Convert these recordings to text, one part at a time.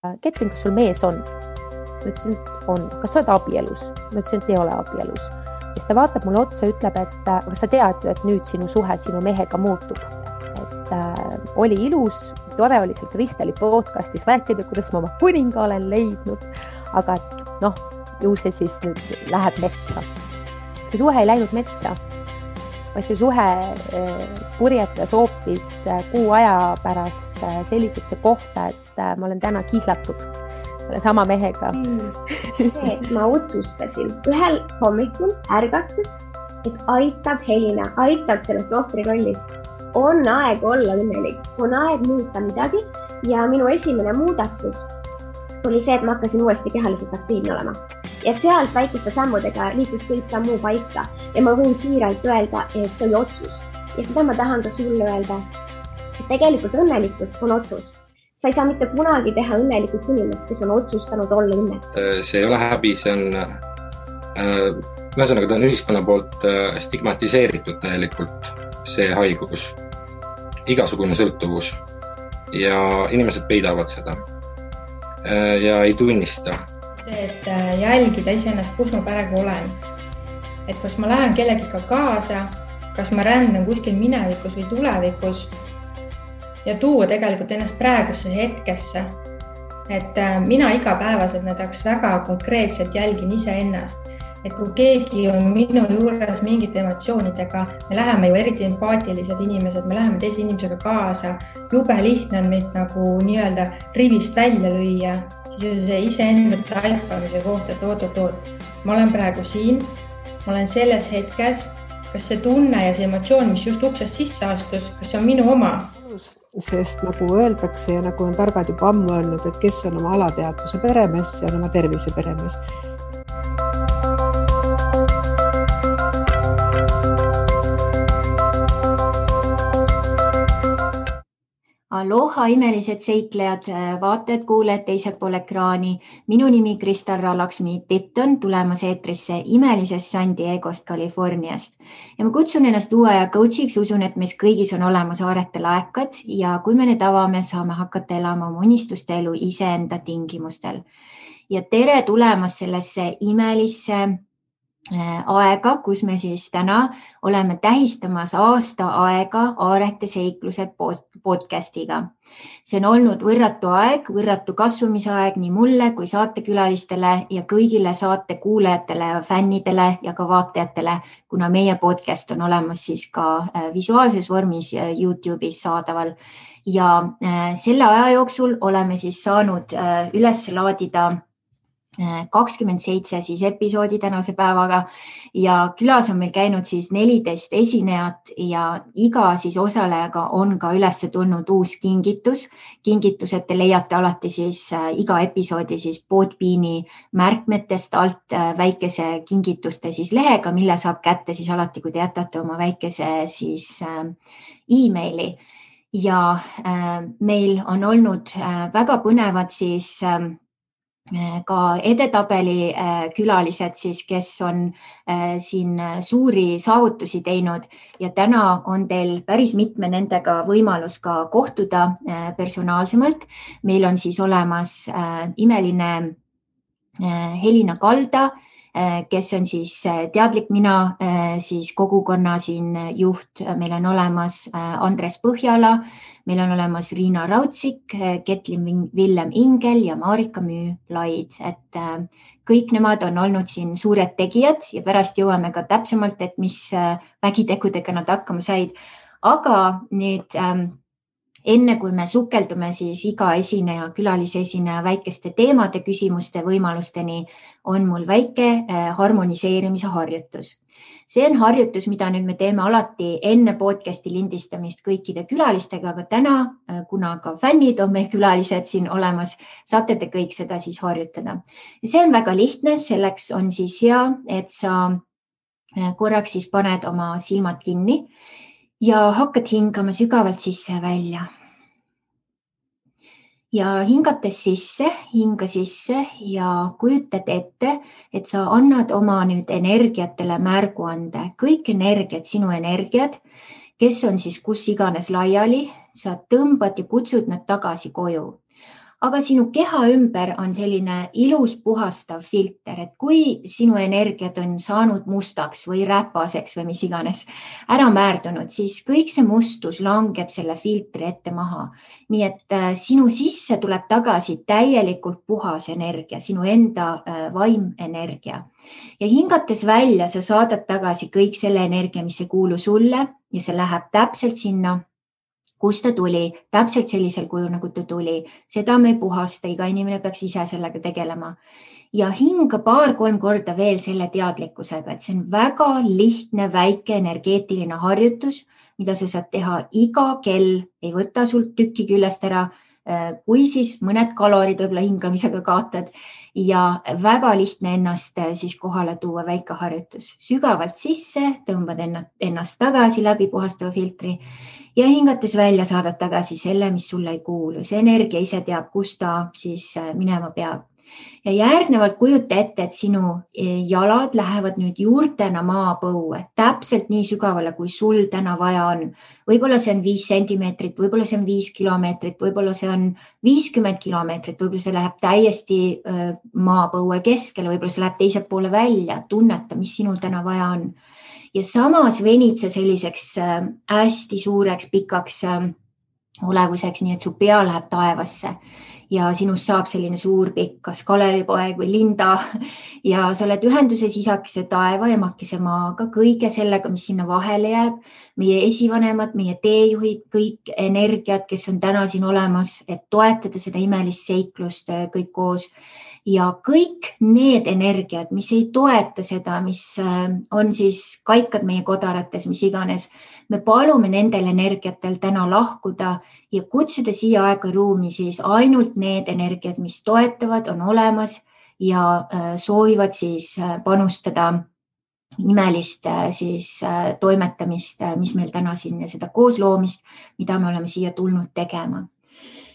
Ketrin, kas sul mees on? Ma ütlesin, et on. Kas sa oled abielus? Ma ütlesin, et ei ole abielus. Ja siis ta vaatab mulle otsa ja ütleb, et aga sa tead ju, et nüüd sinu suhe sinu mehega muutub. Et oli ilus, tore oli seal Kristeli podcastis rääkida, kuidas ma oma kuninga olen leidnud. Aga et ju see siis nüüd läheb metsa. See suhe ei läinud metsa, vaid see suhe purjetas hoopis kuu aja pärast sellisesse kohta, et ma olen täna kihlatud sama mehega. Ma otsustasin ühel hommikul ärgates, et aitab Helina, aitab sellest ohvrirollist. On aeg olla õnnelik, on aeg muuta midagi ja minu esimene muudatus oli see, et ma hakkasin uuesti kehaliselt aktiivne olema. Ja sealt väikeste sammudega liikus kõik ka muu paika ja ma võin siiralt öelda, et see oli otsus. Ja seda ma tahan ka sulle öelda, et tegelikult õnnelikkus on otsus. Sa ei saa mitte kunagi teha õnnelikuks inimest, kes on otsustanud olla õnnelik. See ei ole häbi, see on ühesõnaga ta on ühiskonna poolt stigmatiseeritud täielikult see haigus, igasugune sõltuvus ja inimesed peidavad seda ja ei tunnista. See, et jälgida iseennast, kus ma praegu olen. Et kas ma lähen kellegiga kaasa, kas ma rändan kuskil minevikus või tulevikus ja tuua tegelikult ennast praegusse hetkesse. Et mina igapäevaselt näiteks väga konkreetselt jälgin iseennast. Et kui keegi on minu juures mingite emotsioonidega, me läheme ju eriti empaatilised inimesed, me läheme teise inimesega kaasa, jube lihtne on meid nagu nii-öelda rivist välja lüüa, siis see iseenda taipamise kohta, et oot. Ma olen praegu siin, ma olen selles hetkes, kas see tunne ja see emotsioon, mis just uksest sisse astus, kas see on minu oma? Sest nagu öeldakse ja nagu on targad juba ammu öelnud, et kes on oma alateadvuse peremees, see on oma tervise peremees. Aloha imelised seiklejad, vaatajad, kuulajad teisel pool ekraani. Minu nimi Kristal Laksmi Titton, tulemas eetrisse imelisest San Diegost, Californiast. Ja ma kutsun ennast uue aja coachiks, usun, et meis kõigis on olemas aarete laekad ja kui me need avame, saame hakata elama oma unistuste elu iseenda tingimustel. Ja tere tulemast sellesse imelisse aega, kus me siis täna oleme tähistamas aasta aega Aarete seiklused podcastiga. See on olnud võrratu aeg, võrratu kasvamisaeg nii mulle kui saatekülalistele ja kõigile saate kuulajatele ja fännidele ja ka vaatajatele, kuna meie podcast on olemas siis ka visuaalses vormis YouTube'is saadaval. Ja selle aja jooksul oleme siis saanud üles laadida 27 siis episoodi tänase päevaga ja külas on meil käinud siis 14 esinejat ja iga siis osalejaga on ka üles tulnud uus kingitus. Kingitused te leiate alati siis iga episoodi siis Podbeani märkmetest alt väikese kingituste siis lehega, mille saab kätte siis alati, kui te jätate oma väikese siis e-maili. Ja meil on olnud väga põnevad siis ka edetabeli külalised, siis, kes on siin suuri saavutusi teinud ja täna on teil päris mitme nendega võimalus ka kohtuda personaalsemalt. Meil on siis olemas imeline Helina Kalda, kes on siis teadlik mina, siis kogukonna siin juht. Meil on olemas Andres Põhjala, meil on olemas Riina Raudsik, Ketlin Villem Ingel ja Marika Müü-Laid. Et kõik nemad on olnud siin suured tegijad ja pärast jõuame ka täpsemalt, et mis vägitegudega nad hakkama said. Aga nüüd enne kui me sukeldume siis iga esineja, külalisesineja väikeste teemade, küsimuste, võimalusteni, on mul väike harmoniseerimise harjutus. See on harjutus, mida nüüd me teeme alati enne podcasti lindistamist kõikide külalistega, aga täna, kuna ka fännid on meil külalised siin olemas, saate te kõik seda siis harjutada. See on väga lihtne, selleks on siis hea, et sa korraks siis paned oma silmad kinni ja hakkad hingama sügavalt sisse ja välja. Ja hingates sisse, hinga sisse ja kujutad ette, et sa annad oma nüüd energiatele märguande. Kõik energiat, sinu energiat, kes on siis kus iganes laiali, sa tõmbad ja kutsud nad tagasi koju. aga sinu keha ümber on selline ilus puhastav filter, et kui sinu energiat on saanud mustaks või räpaseks või mis iganes ära määrdunud, siis kõik see mustus langeb selle filtri ette maha. Nii et sinu sisse tuleb tagasi täielikult puhas energia, sinu enda vaimenergia. Ja hingates välja, sa saadad tagasi kõik selle energia, mis ei kuulu sulle ja see läheb täpselt sinna, kus ta tuli, täpselt sellisel kujul, nagu ta tuli. Seda me ei puhasta, iga inimene peaks ise sellega tegelema. Ja hinga 2-3 korda veel selle teadlikkusega, et see on väga lihtne, väike energeetiline harjutus, mida sa saad teha iga kell, ei võta sult tükki küljest ära, kui siis mõned kalorid võib-olla hingamisega kaotad ja väga lihtne ennast siis kohale tuua, väike harjutus. Sügavalt sisse, tõmbad ennast tagasi läbi puhastava filtri ja hingates välja saadad tagasi selle, mis sulle ei kuulu. See energia ise teab, kus ta siis minema peab. Ja järgnevalt kujuta ette, et sinu jalad lähevad nüüd juurtena maapõue, täpselt nii sügavale, kui sul täna vaja on. Võib-olla see on 5 sentimeetrit, võib-olla see on 5 kilomeetrit, võib-olla see on 50 kilomeetrit, võib-olla see läheb täiesti maapõue keskele, võib-olla see läheb teiselt poole välja, tunneta, mis sinul täna vaja on. Ja samas venid see selliseks hästi suureks, pikaks olevuseks, nii et su pea läheb taevasse. Ja sinust saab selline suur pikk, kas Kalevipoeg või Linda ja sa oled ühenduses isakese taeva ja emakese maaga, kõige sellega, mis sinna vahele jääb, meie esivanemad, meie teejuhid, kõik energiat, kes on täna siin olemas, et toetada seda imelist seiklust kõik koos. Ja kõik need energiat, mis ei toeta seda, mis on siis kaikad meie kodarates, mis iganes, me palume nendel energiatel täna lahkuda ja kutsuda siia aega ruumi siis ainult need energiat, mis toetavad, on olemas ja soovivad siis panustada imelist siis toimetamist, mis meil täna siin ja seda koosloomist, mida me oleme siia tulnud tegema.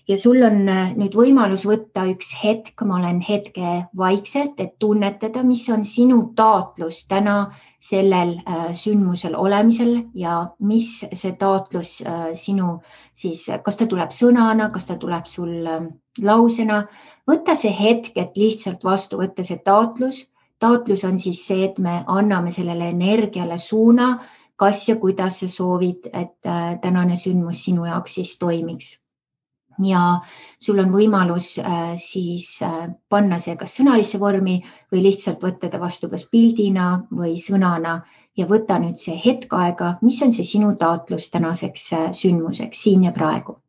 Ja sul on nüüd võimalus võtta üks hetk, ma olen hetke vaikselt, et tunnetada, mis on sinu taotlus täna sellel sündmusel olemisel ja mis see taotlus sinu siis, kas ta tuleb sõnana, kas ta tuleb sul lausena. Võta see hetk, et lihtsalt vastu võtta see taotlus. Taotlus on siis see, et me anname sellele energiale suuna, kas ja kuidas sa soovid, et tänane sündmus sinu jaoks siis toimiks. Ja sul on võimalus siis panna see kas sõnalisse vormi või lihtsalt võtta ta vastu kas pildina või sõnana ja võta nüüd see hetk aega, mis on see sinu taotlus tänaseks sündmuseks siin ja praegu.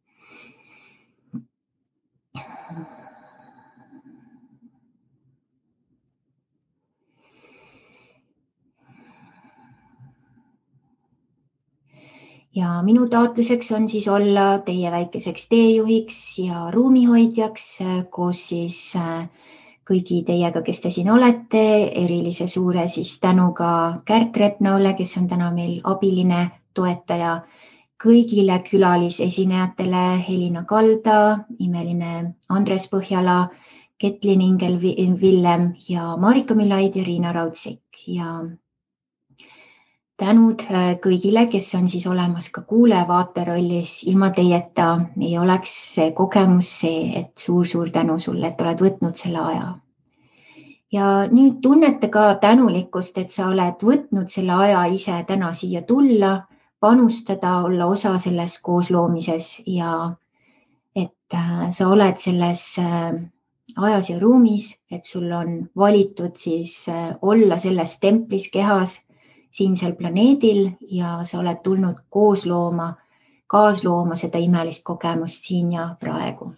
Ja minu taotluseks on siis olla teie väikeseks teejuhiks ja ruumihoidjaks koos siis kõigi teiega, kes te siin olete, erilise suure siis tänuga Kärt Repnaule, kes on täna meil abiline toetaja, kõigile külalisesinejatele Helina Kalda, imeline Andres Põhjala, Ketlin Ingel-Villem ja Marika Milaid ja Riina Raudsik ja tänud kõigile, kes on siis olemas ka kuule-vaate rollis. Ilma teieta ei oleks see kogemus see, et suur-suur tänu sulle, et oled võtnud selle aja. Ja nüüd tunnete ka tänulikkust, et sa oled võtnud selle aja ise täna siia tulla, panustada, olla osa selles koosloomises ja et sa oled selles ajas ja ruumis, et sul on valitud siis olla selles templis kehas siinsel planeedil ja sa oled tulnud kaaslooma seda imelist kogemust siin ja praegu.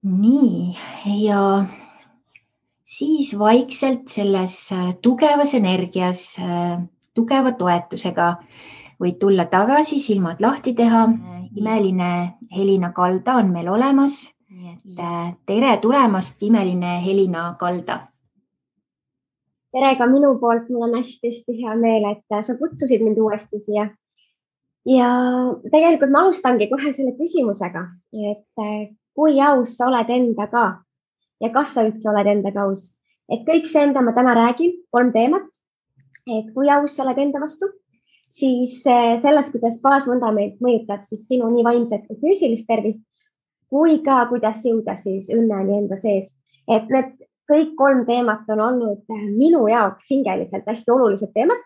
Nii, ja siis vaikselt selles tugevas energias, tugeva toetusega võid tulla tagasi, silmad lahti teha. Imeline Helina Kalda on meil olemas. Tere tulemast, imeline Helina Kalda. Tere ka minu poolt, mul on hästi hea meel, et sa kutsusid mind uuesti siia. Ja tegelikult ma alustangi kohe selle küsimusega, et kui aus sa oled endaga ja kas sa üldse oled endaga aus. Et kõik see, mida ma täna räägin, 3 teemat, et kui aus sa oled enda vastu, siis selles, kuidas baasvundament mõjutab siis sinu nii vaimset kui füüsilist tervist, kui ka kuidas jõuda siis õnneni enda sees. Et need kõik 3 teemat on olnud minu jaoks hingeliselt hästi olulised teemad.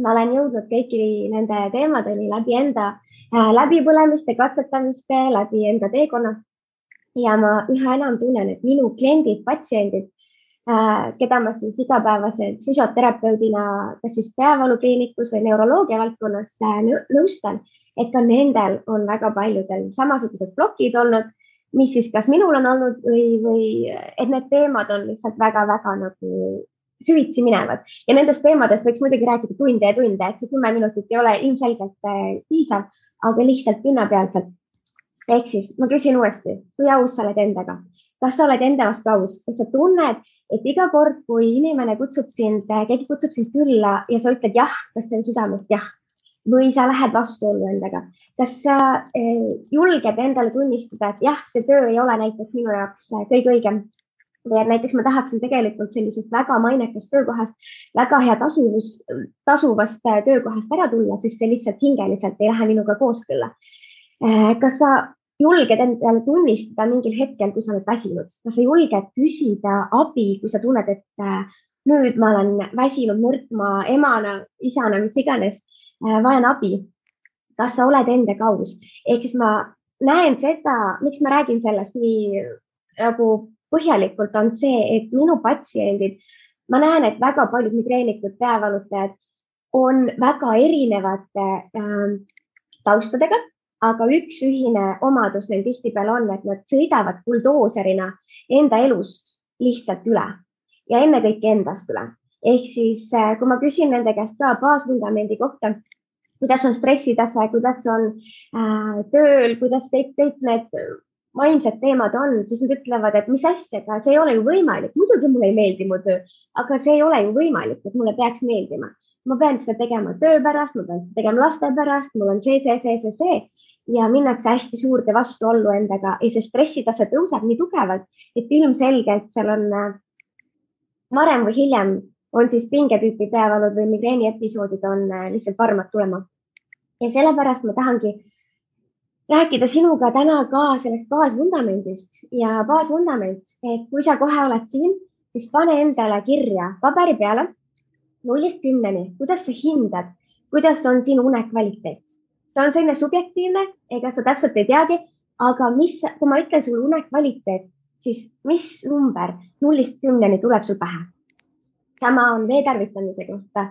Ma olen jõudnud kõiki nende teemadeni läbi enda läbipõlemiste, katsetamiste, läbi enda teekonna. Ja ma üha enam tunnen, et minu kliendid, patsiendid, keda ma siis igapäevaselt füsioterapeudina kas siis peavalukliinikus või neuroloogia valdkonnas nõustan, et ka nendel on väga paljudel samasugused plokid olnud, mis siis kas minul on olnud või et need teemad on lihtsalt väga-väga nagu süvitsi minevad. Ja nendest teemadest võiks muidugi rääkida tunde ja tunde, et see 10 minutit ei ole ilmselgelt piisav, aga lihtsalt pinnapealselt. Ehk siis ma küsin uuesti, kui aus sa oled endaga? Kas sa oled enda vastu aus? Kas sa tunned, et iga kord, kui inimene keegi kutsub sind külla ja sa ütled jah, kas see on südamest jah? Või sa lähed vastuollu endaga? Kas sa julged endale tunnistada, et jah, see töö ei ole näiteks minu jaoks kõige õigem? Või et näiteks ma tahaksin tegelikult sellisest väga mainekast töökohast, väga hea tasuvast töökohast ära tulla, sest see lihtsalt hingeliselt ei lähe minuga kooskõlla. Kas sa julged endale tunnistada mingil hetkel, kui sa oled väsinud? Kas sa julged küsida abi, kui sa tunned, et nüüd ma olen väsinud nõrkma emana, isana, mis iganes, vajan abi? Kas sa oled endaga aus? Ehk siis ma näen seda, miks ma räägin sellest nii nagu põhjalikult on see, et minu patsiendid, ma näen, et väga paljud migreenikud, peavalutajad on väga erinevate taustadega, aga üks ühine omadus neil tihtipeale on, et nad sõidavad buldooserina enda elust lihtsalt üle ja ennekõike endast üle. Ehk siis, kui ma küsin nende käest ka baasvundamendi kohta, kuidas on stressitase, kuidas on tööl, kuidas kõik need vaimsed teemad on, siis nad ütlevad, et mis asjaga, see ei ole ju võimalik. Muidugi mulle ei meeldi mu töö, aga see ei ole ju võimalik, et mulle peaks meeldima. Ma pean seda tegema töö pärast, ma pean seda tegema laste pärast, mul on see. Ja minnakse hästi suurde vastuollu endaga ja see stressitase tõuseb nii tugevalt, et ilmselgelt seal on varem või hiljem on siis pingetüüpi peavalud või migreeni episoodid on lihtsalt varmad tulema. Ja sellepärast ma tahangi rääkida sinuga täna ka sellest baasvundamendist ja baasvundament, et kui sa kohe oled siin, siis pane endale kirja paberi peale 0-10, kuidas sa hindad, kuidas on sinu unekvaliteet. See on selline subjektiivne, ega sa täpselt ei teagi, aga kui ma ütlen sulle unekvaliteet, siis mis number 0-10 tuleb sul pähe? Sama on vee tarvitamise kohta,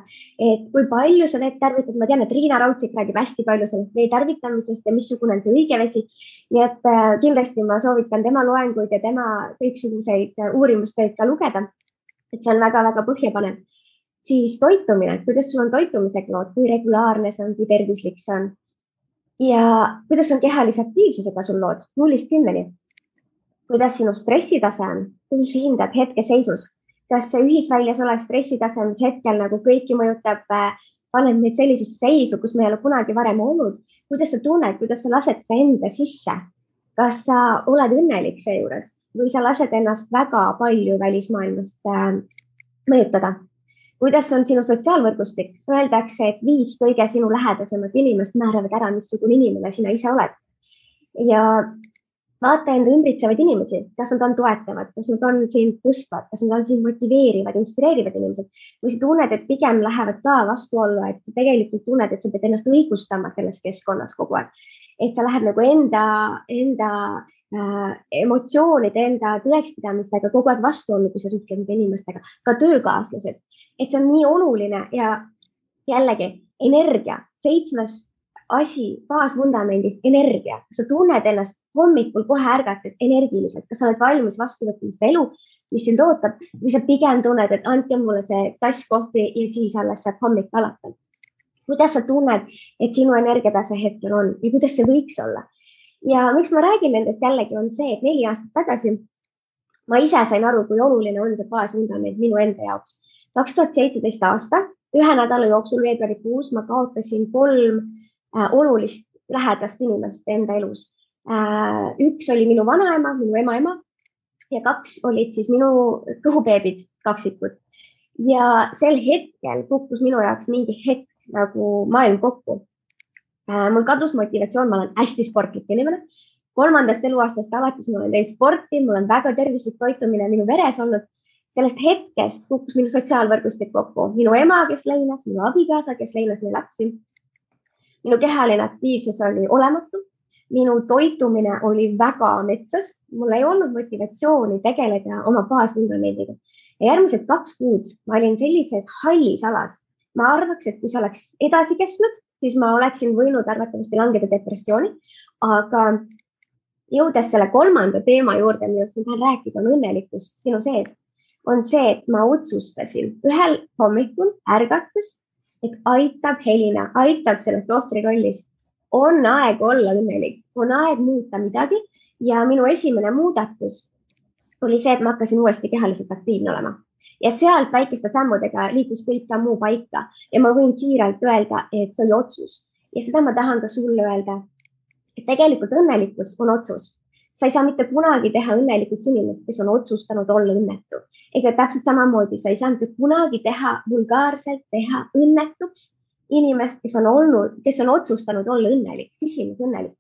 et kui palju sa veed tarvitad, ma tean, et Riina Raudsik räägib hästi palju sellest vee tarvitamisest ja missugune on see õige vesi. Nii et kindlasti ma soovitan tema loenguid ja tema kõiksuguseid uurimustöid ka lugeda, et see on väga-väga põhjapanev. Siis toitumine, kuidas sul on toitumisega lood, kui regulaarne see on, kui tervislik see on. Ja kuidas on kehalise aktiivsusega sul lood 0-10. Kuidas sinu stressitase on, kuidas sa hindad hetkeseisus. Kas see ühisväljas olev stressitase, mis hetkel nagu kõiki mõjutab, paneb meid sellisesse seisu, kus me ei ole kunagi varem olnud. Kuidas sa tunned, kuidas sa lased ka enda sisse? Kas sa oled õnnelik seejuures või sa lased ennast väga palju välismaailmast mõjutada? Kuidas on sinu sotsiaalvõrgustik? Öeldakse, et 5 kõige sinu lähedasemat inimest määravad ära, missugune inimene sina ise oled. Ja vaata enda ümbritsevaid inimesi, kas nad on toetavad, kas nad on sind tõstvad, kas nad on sind motiveerivad, inspireerivad inimesed. Või sa tunned, et pigem lähevad ka vastuollu, et sa tegelikult tunned, et sa pead ennast õigustama selles keskkonnas kogu aeg. Et sa lähed nagu enda emotsioonide, enda tõekspidamistega kogu aeg vastuollu, kui sa suhtled nende inimestega, ka töökaaslased. Et see on nii oluline ja jällegi energia, 7. asi baasvundamendist, energia. Sa tunned ennast hommikul kohe ärgates energiliselt, kas sa oled valmis vastu võtma seda elu, mis sind ootab, või sa pigem tunned, et andke mulle see tass kohvi ja siis alles saab hommik alata. Kuidas sa tunned, et sinu energiatase hetkel on ja kuidas see võiks olla? Ja miks ma räägin nendest jällegi on see, et 4 aastat tagasi ma ise sain aru, kui oluline on see baasvundament minu enda jaoks. 2017 aasta, 1 nädala jooksul veebruarikuus ma kaotasin 3 olulist lähedast inimest enda elus. 1 oli minu vanaema, minu ema ja 2 olid siis minu kõhubeebid, kaksikud. Ja sel hetkel kukkus minu jaoks mingi hetk nagu maailm kokku. Mul kadus motivatsioon, ma olen hästi sportlik inimene. 3. eluaastast alates ma olen teinud sporti, mul on väga tervislik toitumine minu veres olnud. Sellest hetkest kukkus minu sotsiaalvõrgustik kokku. Minu ema, kes leinas, minu abikaasa, kes leinas meie lapsi. Minu kehaline aktiivsus oli olematu. Minu toitumine oli väga metsas. Mul ei olnud motivatsiooni tegeleda oma baasvundamendiga. Ja järgmised 2 kuud ma olin sellises hallis alas. Ma arvaks, et kui see oleks edasi kestnud, siis ma oleksin võinud arvatavasti langeda depressiooni. Aga jõudes selle 3. teema juurde, millest ma tahan rääkida, on õnnelikkus sinu sees. On see, et ma otsustasin ühel hommikul ärgates, et aitab Helina, aitab sellest ohvrirollist. On aeg olla õnnelik, on aeg muuta midagi ja minu esimene muudatus oli see, et ma hakkasin uuesti kehaliselt aktiivne olema. Ja sealt väikeste sammudega liikus kõik ka muu paika ja ma võin siiralt öelda, et see oli otsus. Ja seda ma tahan ka sulle öelda, et tegelikult õnnelikkus on otsus. Sa ei saa mitte kunagi teha õnnelikuks inimest, kes on otsustanud olla õnnetu. Ega täpselt samamoodi sa ei saa mitte kunagi teha vulgaarselt teha õnnetuks inimest, kes on otsustanud olla õnnelik, sisimas õnnelik.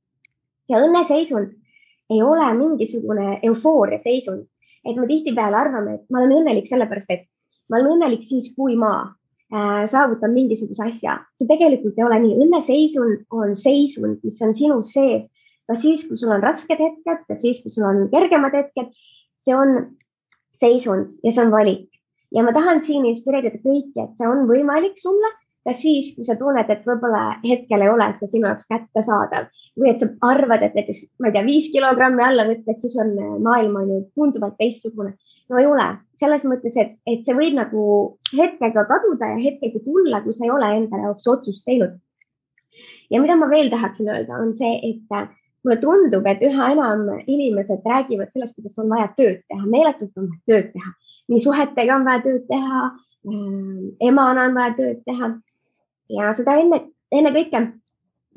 Ja õnneseisund ei ole mingisugune eufooria seisund, et me tihtipeale arvame, et ma olen õnnelik sellepärast, et ma olen õnnelik siis, kui ma saavutan mingisuguse asja. See tegelikult ei ole nii. Õnneseisund on seisund, mis on sinu sees. Ka siis, kui sul on rasked hetked, ka siis, kui sul on kergemad hetked, see on seisund ja see on valik. Ja ma tahan siin inspireerida kõiki, et see on võimalik sulle, ka siis, kui sa tunned, et võib-olla hetkel ei ole see sinu jaoks kättesaadav või et sa arvad, et näiteks, ma ei tea, 5 kilogrammi alla võttes, siis on maailm on ju tunduvalt teistsugune. No ei ole. Selles mõttes, et see võib nagu hetkega kaduda ja hetkega tulla, kui sa ei ole enda jaoks otsust teinud. Ja mida ma veel tahaksin öelda, on see, et mulle tundub, et üha enam inimesed räägivad sellest, kuidas on vaja tööd teha. Meeletult on vaja tööd teha. Nii suhetega on vaja tööd teha, emana on vaja tööd teha. Ja seda enne kõike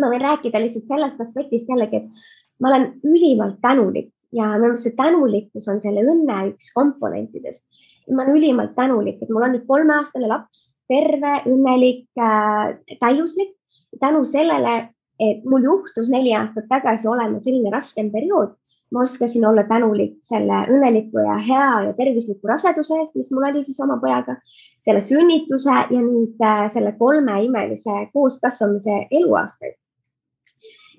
ma võin rääkida lihtsalt sellest aspektist jällegi, et ma olen ülimalt tänulik ja minu meelest see tänulikkus on selle õnne üks komponentidest. Ma olen ülimalt tänulik, et mul on nüüd 3-aastane laps, terve, õnnelik, täiuslik. Tänu sellele, et mul juhtus 4 aastat tagasi olema selline raskem periood, ma oskasin olla tänulik selle õnneliku ja hea ja tervisliku raseduse eest, mis mul oli siis oma pojaga, selle sünnituse ja nüüd selle 3 imelise kooskasvamise eluaastaid.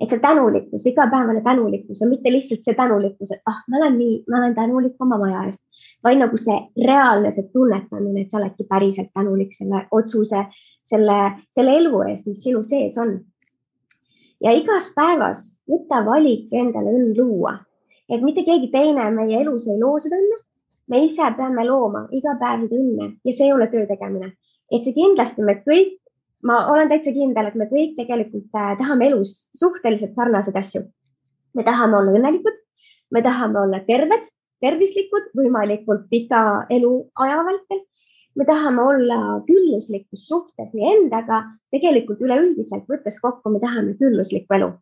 Et see tänulikkus, igapäevane tänulikkus ja mitte lihtsalt see tänulikkus, et ma olen tänulik oma maja eest, vaid nagu see reaalne see tunnetamine, et sa oledki päriselt tänulik selle otsuse, selle elu eest, mis sinu sees on. Ja igas päevas võta valik endale õnn luua, et mitte keegi teine meie elus ei loo seda õnne. Me ise peame looma iga päev seda õnne ja see ei ole töö tegemine. Et see kindlasti me kõik, ma olen täitsa kindel, et me kõik tegelikult tahame elus suhteliselt sarnaseid asju. Me tahame olla õnnelikud, me tahame olla terved, tervislikud, võimalikult pika elu aja vältel. Me tahame olla külluslikus suhtes nii endaga, tegelikult üleüldiselt võttes kokku, me tahame külluslikku elu.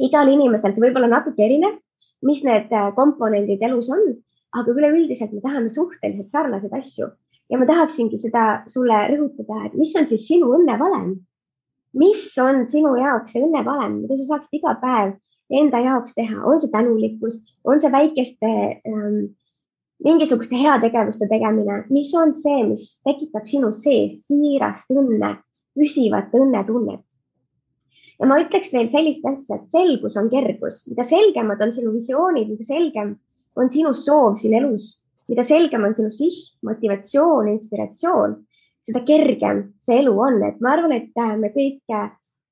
Igal inimesel see võib olla natuke erinev, mis need komponendid elus on, aga üleüldiselt me tahame suhteliselt sarnaseid asju. Ja ma tahaksingi seda sulle rõhutada, et mis on siis sinu õnnevalem? Mis on sinu jaoks see õnnevalem, mida sa saaksid iga päev enda jaoks teha? On see tänulikkus, on see väikeste mingisuguste heategevuste tegemine, mis on see, mis tekitab sinu sees siirast õnne, püsivat õnnetunnet. Ja ma ütleks veel sellist asja, et selgus on kergus. Mida selgemad on sinu visioonid, mida selgem on sinu soov siin elus, mida selgem on sinu siht, motivatsioon, inspiratsioon, seda kergem see elu on. Et ma arvan, et me kõik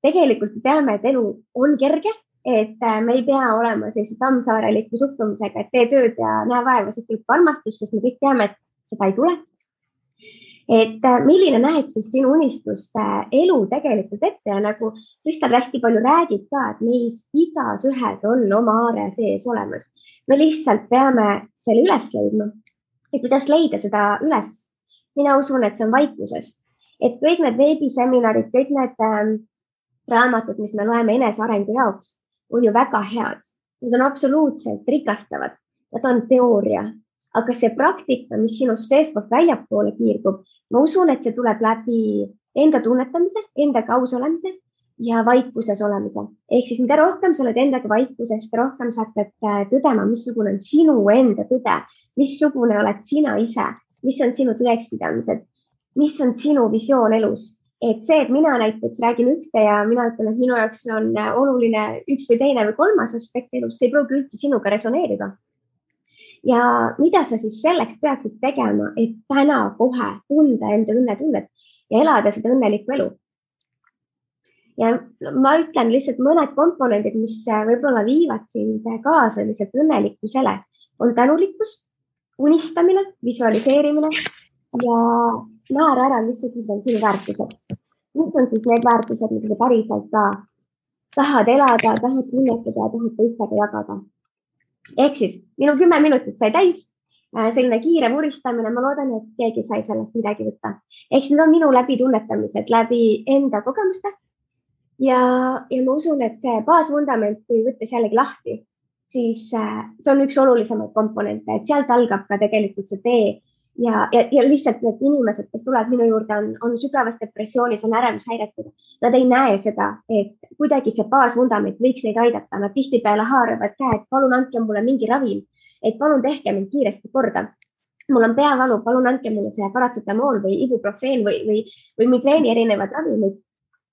tegelikult teame, et elu on kerge, et me ei pea olema sellise Tammsaareliku suhtumisega, et tee tööd ja näe vaeva, sest tuleb armastus, sest me kõik teame, et seda ei tule. Et milline näed siis sinu unistuste elu tegelikult ette ja nagu Kristal hästi palju räägib ka, et meis igas ühes on oma aare sees olemas. Me lihtsalt peame selle üles leidma. Et kuidas leida seda üles? Mina usun, et see on vaikuses. Et kõik need veebiseminarid, kõik need raamatud, mis me loeme enesearengu jaoks, on ju väga head. Need on absoluutselt rikastavad. Need on teooria. Aga see praktika, mis sinust seestpoolt väljapoole kiirgub, ma usun, et see tuleb läbi enda tunnetamise, enda kaus olemise ja vaikuses olemise. Ehk siis mida rohkem sa oled endaga vaikuses, seda rohkem sa hakkad tõdema, missugune on sinu enda tõde, missugune oled sina ise, mis on sinu tõekspidamised, mis on sinu visioon elus. Et see, et mina näiteks räägin ühte ja mina ütlen, et minu jaoks on oluline üks või teine või kolmas aspekt elus, see ei pruugi üldse sinuga resoneerida. Ja mida sa siis selleks peaksid tegema, et täna kohe tunda enda õnnetunnet ja elada seda õnnelikku elu? Ja ma ütlen lihtsalt mõned komponendid, mis võib-olla viivad sind kaasa lihtsalt õnnelikkusele, on tänulikkus, unistamine, visualiseerimine ja määra ära, missugused on sinu väärtused. Mis on siis need väärtused, mida sa päriselt ka tahad elada, tahad tunnetada, tahad teistega jagada. Ehk siis minu 10 minutit sai täis, selline kiire vuristamine, ma loodan, et keegi sai sellest midagi võtta. Ehk siis need on minu läbi tunnetamised, läbi enda kogemuste. Ja ma usun, et see baasvundament, kui võttes jällegi lahti, siis see on üks olulisemaid komponente, et sealt algab ka tegelikult see tee. Ja lihtsalt need inimesed, kes tulevad minu juurde, on sügavas depressioonis, on ärevushäiretud. Nad ei näe seda, et kuidagi see baasvundament võiks neid aidata. Nad tihtipeale haaravad käed, palun andke mulle mingi ravim, et palun tehke mind kiiresti korda. Mul on peavalu, palun andke mulle see paratsetamool või ibuprofeen või migreeni erinevad ravimid.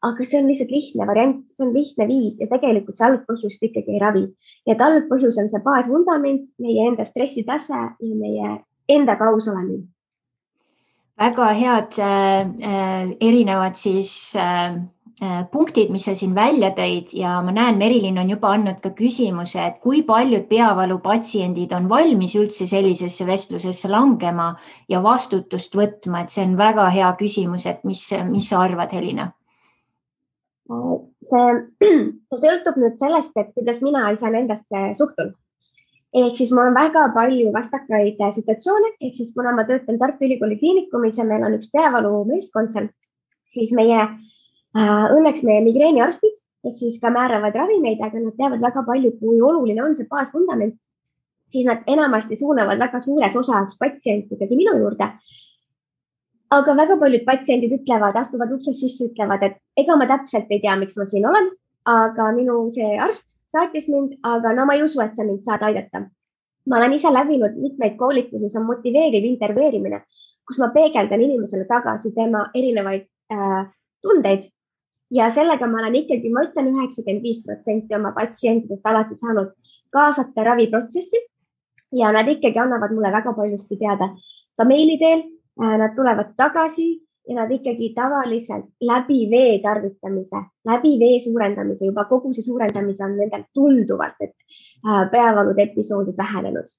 Aga see on lihtsalt lihtne variant, see on lihtne viis ja tegelikult see algpõhjust ikkagi ei ravi. Ja et algpõhjus on see baasvundament, meie enda stressitase ja meie enda kaus olemine. Väga head erinevad siis punktid, mis sa siin välja tõid ja ma näen, Merilin on juba andnud ka küsimuse, et kui paljud peavalupatsiendid on valmis üldse sellisesse vestlusesse langema ja vastutust võtma, et see on väga hea küsimus, et mis sa arvad, Helina? See sõltub nüüd sellest, et kuidas mina iseendasse suhtun. Ehk siis mul on väga palju vastakaid situatsioone, ehk siis kuna ma töötan Tartu Ülikooli kliinikumis ja meil on üks peavalu meeskond seal, siis õnneks meie migreeniarstid, kes siis ka määravad ravimeid, aga nad teavad väga palju, kui oluline on see baasvundament, siis nad enamasti suunavad väga suures osas patsientidegi minu juurde. Aga väga paljud patsiendid ütlevad, astuvad uksest sisse, ütlevad, et ega ma täpselt ei tea, miks ma siin olen, aga minu see arst saatis mind, aga no ma ei usu, et sa mind saad aidata. Ma olen ise läbinud mitmeid koolitusi, see on motiveeriv interveerimine, kus ma peegeldan inimesele tagasi tema erinevaid tundeid ja sellega ma olen ikkagi, ma ütlen 95% oma patsientidest alati saanud kaasata raviprotsessi ja nad ikkagi annavad mulle väga paljusti teada ka meili teel, nad tulevad tagasi ja nad ikkagi tavaliselt läbi vee tarvitamise, läbi vee suurendamise, juba kogu see suurendamise on nendel tunduvalt, et peavalud episoodid vähenenud.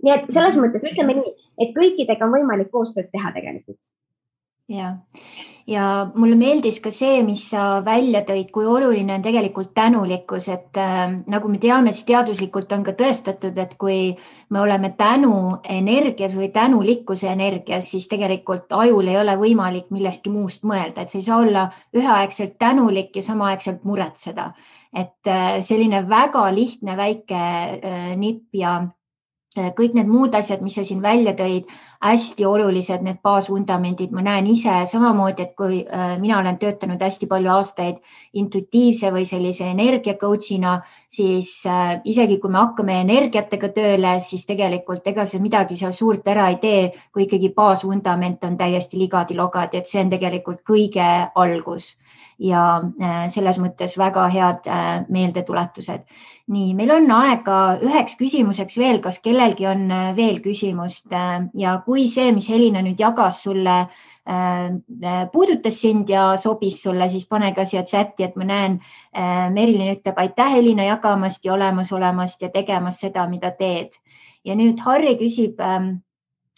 Nii et selles mõttes ütleme nii, et kõikidega on võimalik koostööd teha tegelikult. Ja mulle meeldis ka see, mis sa välja tõid, kui oluline on tegelikult tänulikkus, et nagu me teame, siis teaduslikult on ka tõestatud, et kui me oleme tänu energias või tänulikkuse energias, siis tegelikult ajul ei ole võimalik millestki muust mõelda, et sa ei saa olla üheaegselt tänulik ja samaaegselt muretseda. Et selline väga lihtne väike nipp ja kõik need muud asjad, mis sa siin välja tõid, hästi olulised, need baasvundamendid, ma näen ise samamoodi, et kui mina olen töötanud hästi palju aastaid intuitiivse või sellise energia coachina, siis isegi kui me hakkame energiatega tööle, siis tegelikult ega see midagi seal suurt ära ei tee, kui ikkagi baasvundament on täiesti ligadi-logadi, et see on tegelikult kõige algus ja selles mõttes väga head meeldetuletused. Nii, meil on aega üheks küsimuseks veel, kas kellelgi on veel küsimust ja kui see, mis Helina nüüd jagas sulle, puudutas sind ja sobis sulle, siis pane ka siia chati, et ma näen, Merilin ütleb, aitäh Helina jagamast ja olemast ja tegemas seda, mida teed. Ja nüüd Harri küsib,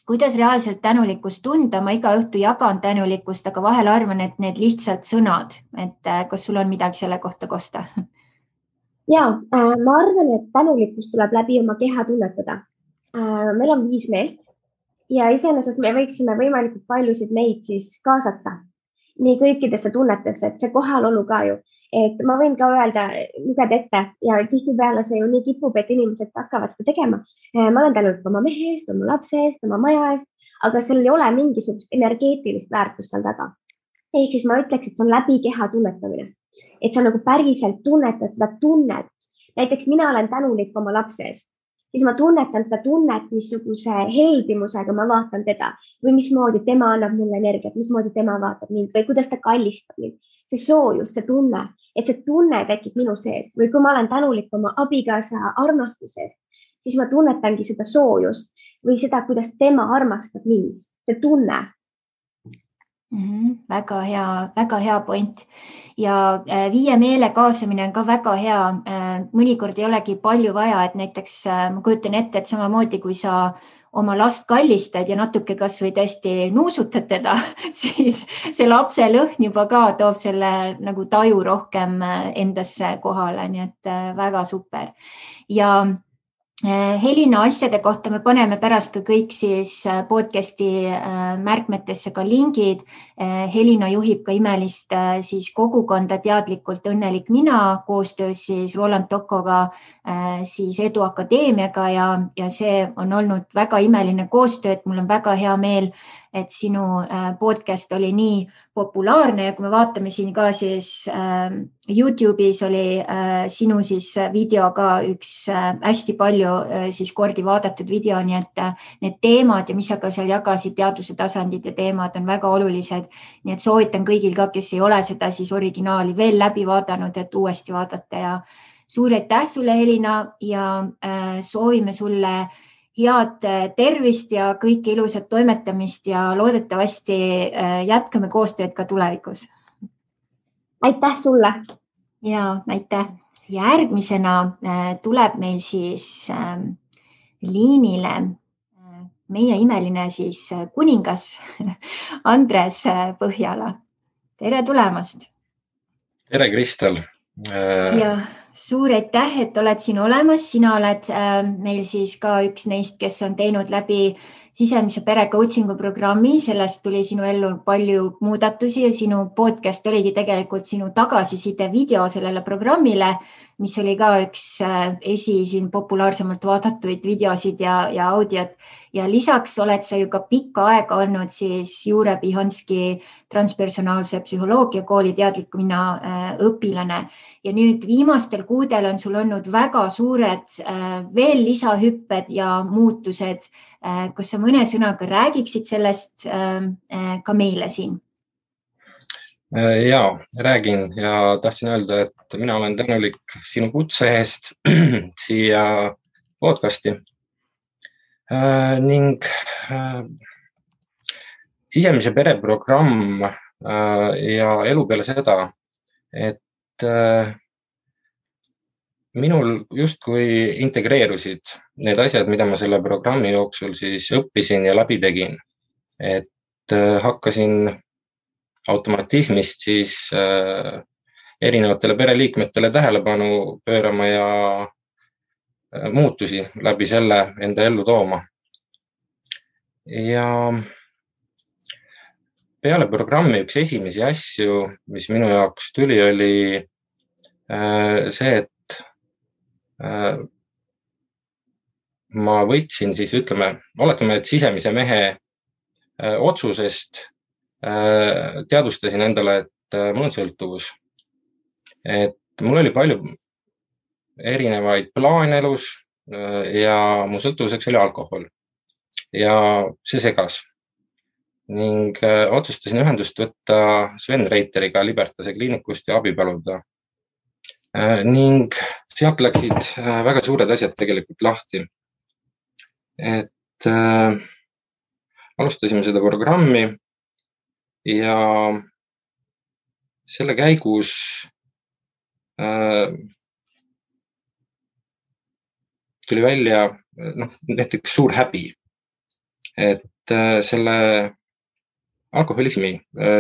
kuidas reaalselt tänulikkust tunda, ma iga õhtu jagan tänulikkust, aga vahel arvan, et need lihtsalt sõnad, et kas sul on midagi selle kohta kosta? Ja, ma arvan, et tänulikkus tuleb läbi oma keha tunnetada. Meil on 5 meelt ja iseenesest me võiksime võimalikult paljusid neid siis kaasata nii kõikidesse tunnetesse, et see kohalolu ka ju. Et ma võin ka öelda, lugeda ette ja tihtipeale see ju nii kipub, et inimesed hakkavad seda tegema. Ma olen tänulik oma mehe eest, oma lapse eest, oma maja eest, aga seal ei ole mingisugust energeetilist väärtust seal taga. Ehk siis ma ütleks, et see on läbi keha tunnetamine. et sa nagu päriselt tunnetad seda tunnet. Näiteks mina olen tänulik oma lapse eest, siis ma tunnetan seda tunnet, missuguse heldimusega ma vaatan teda või mismoodi tema annab mulle energiat, mismoodi tema vaatab mind või kuidas ta kallistab mind. See soojus, see tunne, et see tunne tekib minu sees või kui ma olen tänulik oma abikaasa armastuse eest, siis ma tunnetangi seda soojust või seda, kuidas tema armastab mind, see tunne. Väga hea point ja viie meele kaasamine on ka väga hea. Mõnikord ei olegi palju vaja, et näiteks ma kujutan ette, et samamoodi kui sa oma last kallistad ja natuke kas või tõesti nuusutad teda, siis see lapse lõhn juba ka toob selle nagu taju rohkem endasse kohale, nii et väga super. Ja Helina asjade kohta me paneme pärast ka kõik siis podcasti märkmetesse ka lingid. Helina juhib ka imelist siis kogukonda Teadlikult õnnelik mina koostöös siis Roland Tokoga siis Edu Akadeemiaga ja see on olnud väga imeline koostöö, et mul on väga hea meel, et sinu podcast oli nii populaarne ja kui me vaatame siin ka siis YouTube'is oli sinu siis video ka üks hästi palju siis kordi vaadatud video, nii et need teemad ja mis sa ka seal jagasid, teaduse tasandid ja teemad on väga olulised. Nii et soovitan kõigil ka, kes ei ole seda siis originaali veel läbi vaadanud, et uuesti vaadata ja suur aitäh sulle, Helina, ja soovime sulle head tervist ja kõike ilusat toimetamist ja loodetavasti jätkame koostööd ka tulevikus. Aitäh sulle! Ja aitäh! Järgmisena tuleb meil siis liinile meie imeline siis kuningas Andres Põhjala. Tere tulemast! Tere, Kristel! Ja suur aitäh, et oled siin olemas. Sina oled meil siis ka üks neist, kes on teinud läbi sisemise pere coachingu programmi. Sellest tuli sinu ellu palju muudatusi ja sinu podcast oligi tegelikult sinu tagasiside video sellele programmile, mis oli ka üks siin populaarsemalt vaadatuid videosid ja audiot. Ja lisaks oled sa ju ka pikka aega olnud siis Jure Pihanski transpersonaalse psühholoogia kooli Teadliku mina õpilane. Ja nüüd viimastel kuudel on sul olnud väga suured veel lisahüpped ja muutused. Kas sa mõne sõnaga räägiksid sellest ka meile siin? Ja, räägin ja tahtsin öelda, et mina olen tänulik sinu kutse eest siia podcasti ning sisemise pere programm ja elu peale seda, et minul justkui integreerusid need asjad, mida ma selle programmi jooksul siis õppisin ja läbi tegin, et hakkasin automatismist siis erinevatele pereliikmetele tähelepanu pöörama ja muutusi läbi selle enda ellu tooma. Ja peale programmi üks esimesi asju, mis minu jaoks tuli, oli see, et ma võtsin siis, oletame, et sisemise mehe otsusest teadustasin endale, et mul on sõltuvus. Et mul oli palju erinevaid plaane elus ja mu sõltuvuseks oli alkohol. Ja see segas. Ning otsustasin ühendust võtta Sven Reiteriga Libertase kliinikust ja abi paluda. Ning sealt läksid väga suured asjad tegelikult lahti. Et alustasime seda programmi ja selle käigus tuli välja näiteks suur häbi, et selle alkoholismi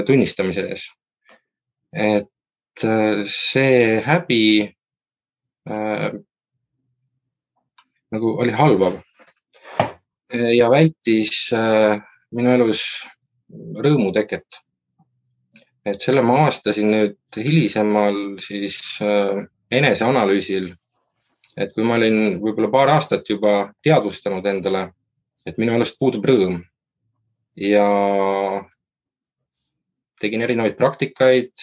tunnistamise ees. Et see häbi nagu oli halvav ja vältis minu elus rõõmu teket. Et selle ma avastasin nüüd hilisemal siis eneseanalüüsil, et kui ma olin võib-olla paar aastat juba teadvustanud endale, et minu elust puudub rõõm ja tegin erinevaid praktikaid,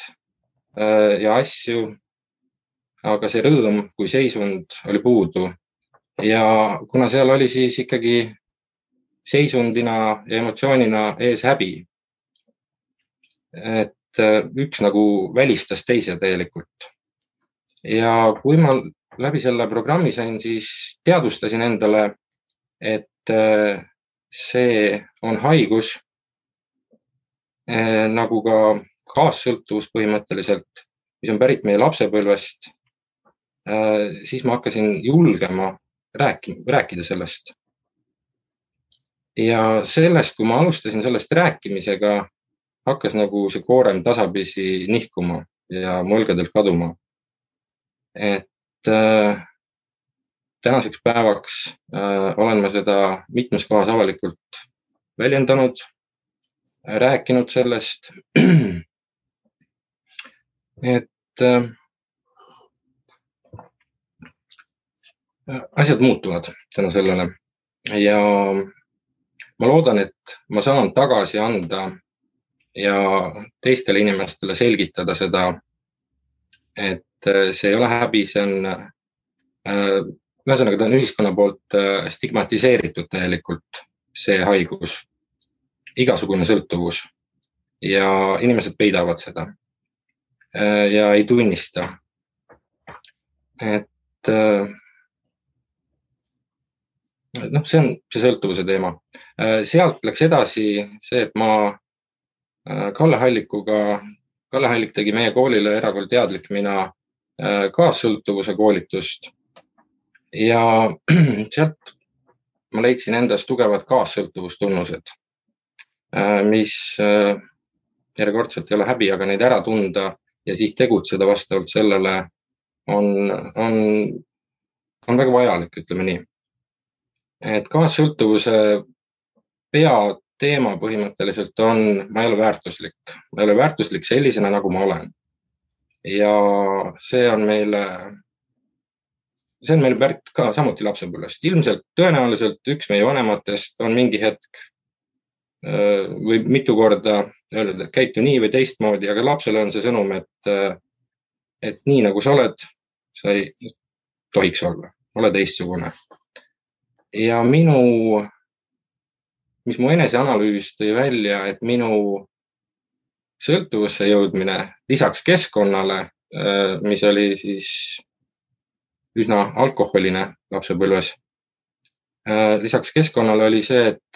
ja asju, aga see rõõm kui seisund oli puudu. Ja kuna seal oli siis ikkagi seisundina ja emotsioonina ees häbi, et üks nagu välistas teise tegelikult. Ja kui ma läbi selle programmi sain, siis teadvustasin endale, et see on haigus, nagu ka kaassõltuvus põhimõtteliselt, mis on pärit meie lapsepõlvest, siis ma hakkasin julgema rääkida sellest. Ja sellest, kui ma alustasin sellest rääkimisega, hakkas nagu see koorem tasapisi nihkuma ja mu õlgadelt kaduma. Et tänaseks päevaks olen ma seda mitmes kohas avalikult väljendanud, rääkinud sellest, et asjad muutuvad tänu sellele ja ma loodan, et ma saan tagasi anda ja teistele inimestele selgitada seda, et see ei ole häbi, see on ühesõnaga ta on ühiskonna poolt stigmatiseeritud täielikult see haigus, igasugune sõltuvus ja inimesed peidavad seda ja ei tunnista. Et see on see sõltuvuse teema. Sealt läks edasi see, et ma Kalle Hallik tegi meie koolile Erakool Teadlik mina kaassõltuvuse koolitust ja sealt ma leidsin endas tugevad kaassõltuvustunnused, mis järjekordselt ei ole häbi, aga neid ära tunda ja siis tegutseda vastavalt sellele on väga vajalik, ütleme nii. Et kaassõltuvuse peateema põhimõtteliselt on, ma ei ole väärtuslik. Ma ei ole väärtuslik sellisena, nagu ma olen. Ja see on meile pärit ka samuti lapsepõlvest. Ilmselt tõenäoliselt üks meie vanematest on mingi hetk või mitu korda öelnud, et käitu nii või teistmoodi, aga lapsele on see sõnum, et nii nagu sa oled, sa ei tohiks olla, ole teistsugune. Ja mis mu eneseanalüüs tõi välja, et minu sõltuvusse jõudmine lisaks keskkonnale, mis oli siis üsna alkoholine lapsepõlves, lisaks keskkonnale oli see, et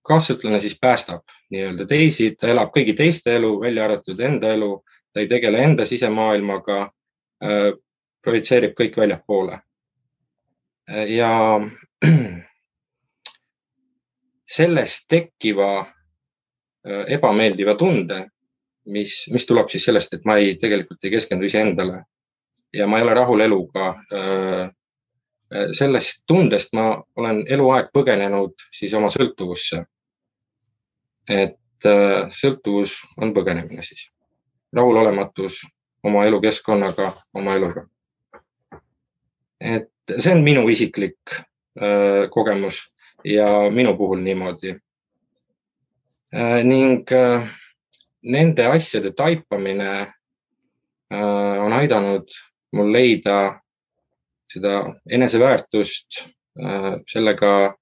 kaassõltlane siis päästab nii-öelda teisi, ta elab kõigi teiste elu, välja arvatud enda elu, ta ei tegele enda sisemaailmaga, projitseerib kõik väljapoole. Ja sellest tekkiva ebameeldiva tunde, mis tuleb siis sellest, et ma tegelikult ei keskendu iseendale ja ma ei ole rahul eluga. Sellest tundest ma olen eluaeg põgenenud siis oma sõltuvusse. Et sõltuvus on põgenemine siis. Rahulolematus oma elukeskkonnaga, oma eluga. Et see on minu isiklik kogemus ja minu puhul niimoodi. Ning nende asjade taipamine on aidanud mul leida seda eneseväärtust, sellega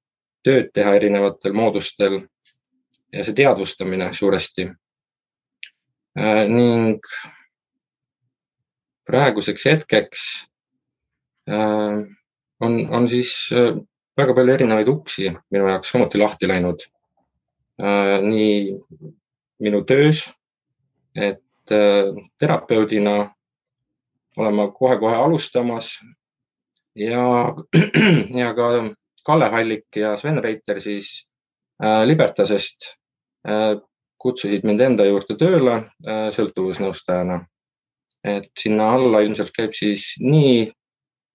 tööd teha erinevatel moodustel ja see teadvustamine suuresti. Ning praeguseks hetkeks on siis väga palju erinevaid uksi minu jaoks samuti lahti läinud. Nii minu töös, et terapeudina olen ma kohe alustamas ja ka Kalle Hallik ja Sven Reiter siis Libertasest kutsusid mind enda juurde tööle sõltuvusnõustajana. Et sinna alla ilmselt käib siis nii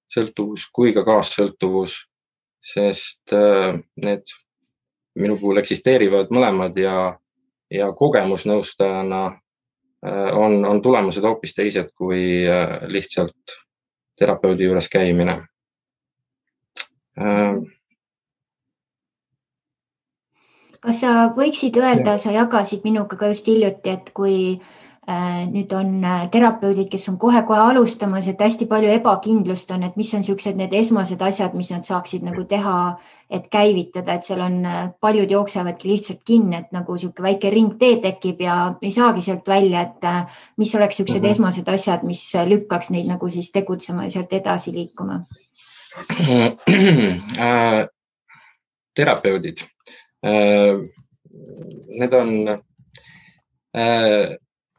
sõltuvus kui ka kaassõltuvus, sest need minu puhul eksisteerivad mõlemad ja kogemusnõustajana on tulemused hoopis teised kui lihtsalt terapeudi juures käimine. Kas sa võiksid öelda, sa jagasid minuga ka just hiljuti, et kui nüüd on terapeudid, kes on kohe-kohe alustamas, et hästi palju ebakindlust on, et mis on sellised need esmased asjad, mis nad saaksid nagu teha, et käivitada, et seal on paljud jooksevadki lihtsalt kinni, et nagu selline väike ringtee tekib ja ei saagi sealt välja, et mis oleks sellised esmased asjad, mis lükkaks neid nagu siis tegutsema ja sealt edasi liikuma? Terapeudid. Need on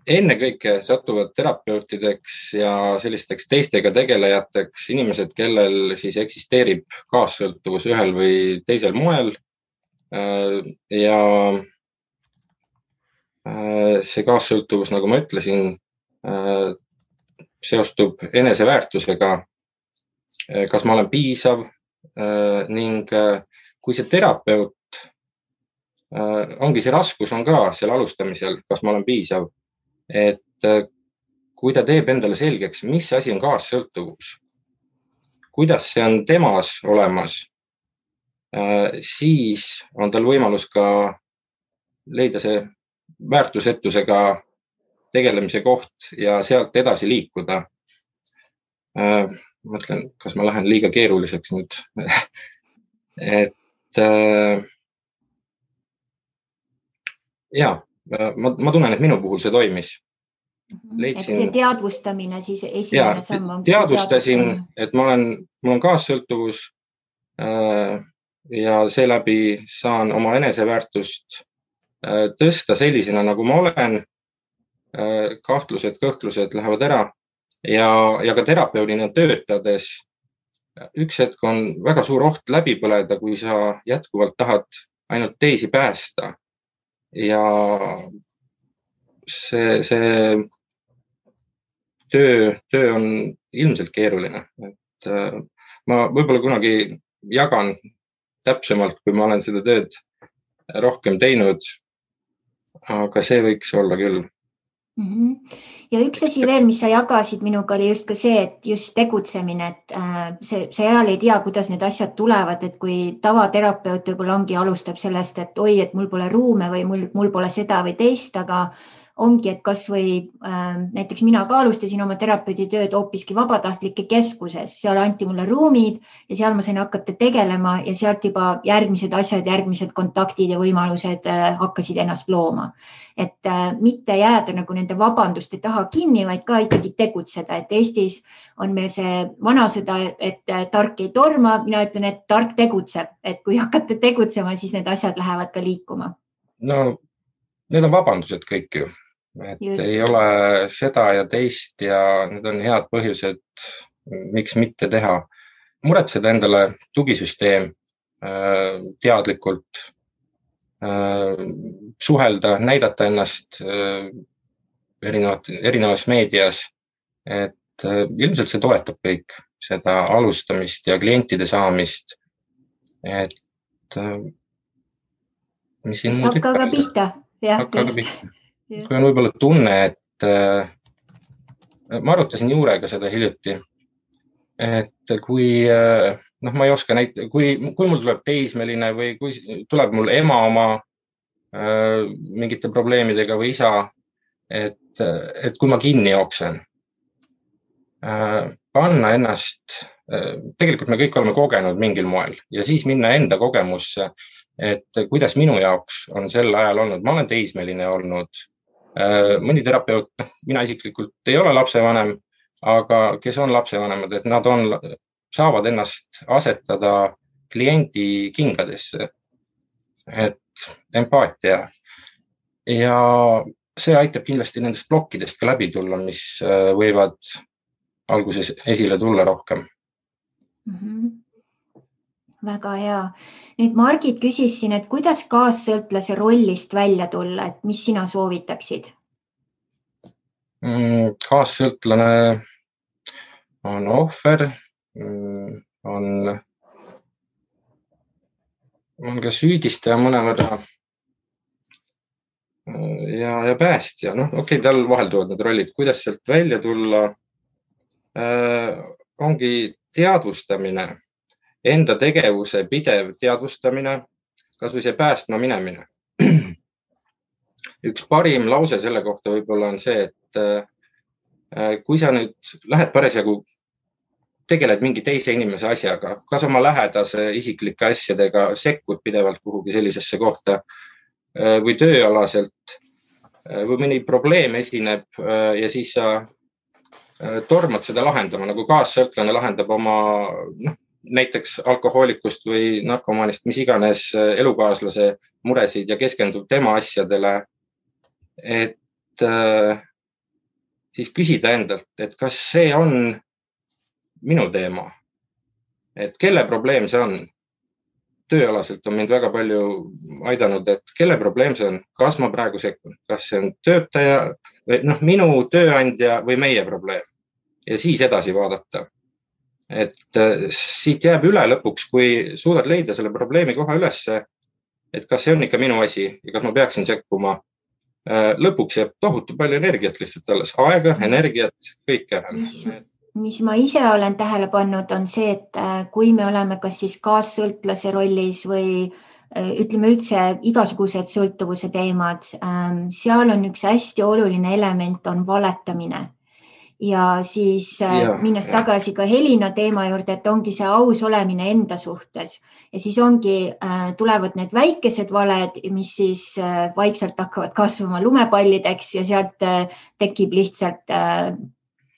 ennekõike satuvad terapeutideks ja sellisteks teistega tegelejateks inimesed, kellel siis eksisteerib kaassõltuvus ühel või teisel moel. Ja see kaassõltuvus, nagu ma ütlesin, seostub eneseväärtusega, kas ma olen piisav ning kui see terapeut, ongi see raskus on ka seal alustamisel, kas ma olen piisav, et kui ta teeb endale selgeks, mis asi on kaassõltuvus, kuidas see on temas olemas, siis on tal võimalus ka leida see väärtusetusega tegelemise koht ja sealt edasi liikuda. Mõtlen, kas ma lähen liiga keeruliseks nüüd. Et ja, ma tunnen, et minu puhul see toimis. Et see teadvustamine siis esimene samm on. Teadvustasin, et mul on kaassõltuvus ja seeläbi saan oma eneseväärtust tõsta sellisena, nagu ma olen. Kahtlused, kõhklused lähevad ära ja ka terapeudina töötades üks hetk on väga suur oht läbi põleda, kui sa jätkuvalt tahad ainult teisi päästa. Ja see töö on ilmselt keeruline. Et ma võib-olla kunagi jagan täpsemalt, kui ma olen seda tööd rohkem teinud, aga see võiks olla küll. Ja üks asi veel, mis sa jagasid minuga, oli just ka see, et just tegutsemine, et see ajal ei tea, kuidas need asjad tulevad, et kui tavaterapeut võib-olla ongi alustab sellest, et oi, et mul pole ruume või mul pole seda või teist, aga ongi, et kas või näiteks mina ka alustasin oma terapeudi tööd hoopiski vabatahtlike keskuses, seal anti mulle ruumid ja seal ma sain hakata tegelema ja sealt juba järgmised asjad, järgmised kontaktid ja võimalused hakkasid ennast looma. Et mitte jääda nagu nende vabanduste taha kinni, vaid ka ikkagi tegutseda, et Eestis on meil see vanasõda, et tark ei torma, mina ütlen, et tark tegutseb, et kui hakata tegutsema, siis need asjad lähevad ka liikuma. No, need on vabandused kõik ju. Et just. Ei ole seda ja teist ja need on head põhjused, miks mitte teha. Muretseda endale tugisüsteem teadlikult, suhelda, näidata ennast erinevas meedias, et ilmselt see toetab kõik seda alustamist ja klientide saamist, et mis siin muud hakka ka pihta. Kui on võib-olla tunne, et ma arutasin Juurega seda hiljuti, et kui, ma ei oska kui mul tuleb teismeline või kui tuleb mul ema oma mingite probleemidega või isa, et kui ma kinni jooksen, panna ennast, tegelikult me kõik oleme kogenud mingil moel ja siis minna enda kogemusse, et kuidas minu jaoks on sel ajal olnud, ma olen teismeline olnud, mõni terapeut, mina isiklikult ei ole lapsevanem, aga kes on lapsevanemad, et nad saavad ennast asetada kliendi kingadesse, et empaatia ja see aitab kindlasti nendest plokkidest ka läbi tulla, mis võivad alguses esile tulla rohkem. Väga hea. Nüüd Margit küsis siin, et kuidas kaassõltlase rollist välja tulla, et mis sina soovitaksid? Kaassõltlane on ohver, on ka süüdistaja mõnevõrra ja päästja. Okei, tal vahelduvad need rollid, kuidas sealt välja tulla, ongi teadvustamine. Enda tegevuse pidev teadvustamine, kas või see päästma minemine. Üks parim lause selle kohta võib-olla on see, et kui sa nüüd lähed parasjagu tegeled mingi teise inimese asjaga, kas oma lähedase isiklike asjadega, sekkud pidevalt kuhugi sellisesse kohta või tööalaselt või mõni probleem esineb ja siis sa tormad seda lahendama, nagu kaassõltlane lahendab oma näiteks alkohoolikust või narkomaanist, mis iganes elukaaslase muresid ja keskendub tema asjadele, et siis küsida endalt, et kas see on minu teema, et kelle probleem see on. Tööalaselt on mind väga palju aidanud, et kelle probleem see on, kas ma praegu sekkun, kas see on töötaja või minu tööandja või meie probleem ja siis edasi vaadata. Et siit jääb üle lõpuks, kui suudad leida selle probleemi koha ülesse, et kas see on ikka minu asi ja kas ma peaksin sekkuma. Lõpuks jääb tohutu palju energiat lihtsalt alles, aega, energiat, kõike. Mis ma ise olen tähele pannud, on see, et kui me oleme kas siis kaassõltlase rollis või ütleme üldse igasugused sõltuvuse teemad, seal on üks hästi oluline element, on valetamine. Ja siis minnes tagasi ka Helina teema juurde, et ongi see aus olemine enda suhtes. Ja siis tulevad need väikesed valed, mis siis vaikselt hakkavad kasvama lumepallideks ja sealt tekib lihtsalt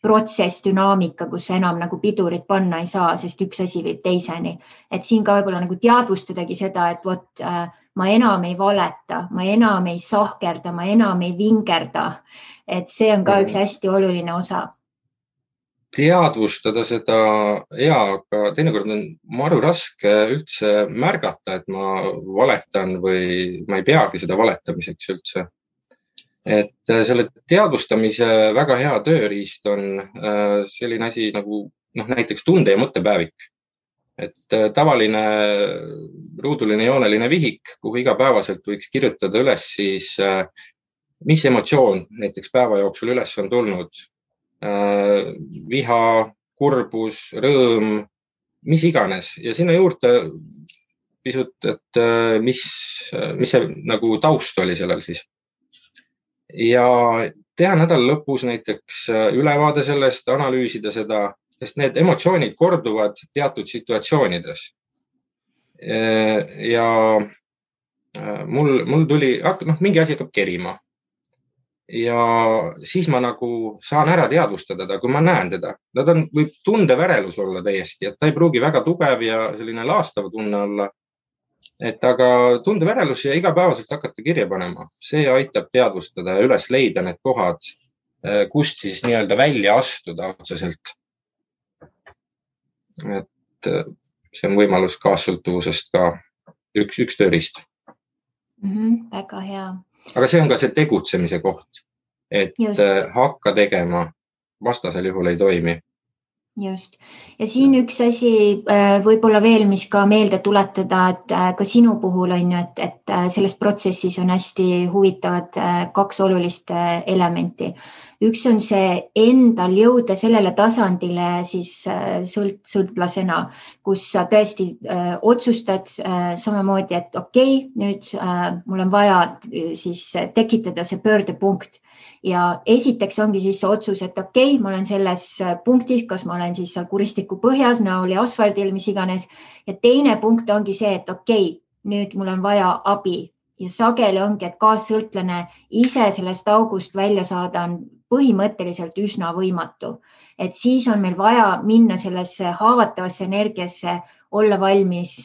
protsess, dünaamika, kus enam nagu pidurit panna ei saa, sest üks asi viib teiseni. Et siin ka võib-olla nagu teadvustadagi seda, et ma enam ei valeta, ma enam ei sahkerda, ma enam ei vingerda. Et see on ka üks hästi oluline osa. Teadvustada seda, aga teinekord on maru raske üldse märgata, et ma valetan või ma ei peagi seda valetamiseks üldse. Et selle teadvustamise väga hea tööriist on selline asi nagu näiteks tunde- ja mõttepäevik. Et tavaline ruuduline jooneline vihik, kuhu igapäevaselt võiks kirjutada üles siis, mis emotsioon näiteks päeva jooksul üles on tulnud. Viha, kurbus, rõõm, mis iganes. Ja sinna juurde pisut, et mis see nagu taust oli sellel siis. Ja teha nädala lõpus näiteks ülevaade sellest, analüüsida seda, sest need emotsioonid korduvad teatud situatsioonides. Ja mul tuli, mingi asi hakkab kerima. Ja siis ma nagu saan ära teadvustada ta, kui ma näen teda. Võib tundevärelus olla täiesti, et ta ei pruugi väga tugev ja selline laastav tunne olla. Et aga tundevärelus ja igapäevaselt hakata kirja panema, see aitab teadvustada ja üles leida need kohad, kust siis nii-öelda välja astuda otseselt. Et see on võimalus kaassõltuvusest ka üks tööriist. Väga hea. Aga see on ka see tegutsemise koht, et hakka tegema, vastasel juhul ei toimi. Just. Ja siin üks asi võib-olla veel, mis ka meelde tuletada, et ka sinu puhul on ju, et selles protsessis on hästi huvitavad kaks olulist elementi. Üks on see endal jõuda sellele tasandile siis sõltlasena, kus sa tõesti otsustad samamoodi, et okei, nüüd mul on vaja siis tekitada see pöördepunkt. Ja esiteks ongi siis see otsus, et okei, ma olen selles punktis, kas ma olen siis seal kuristiku põhjas, näol ja asfaldil, mis iganes. Ja teine punkt ongi see, et okei, nüüd mul on vaja abi. Ja sageli ongi, et kaassõltlane ise sellest august välja saada on põhimõtteliselt üsna võimatu. Et siis on meil vaja minna sellesse haavatavasse energiasse, olla valmis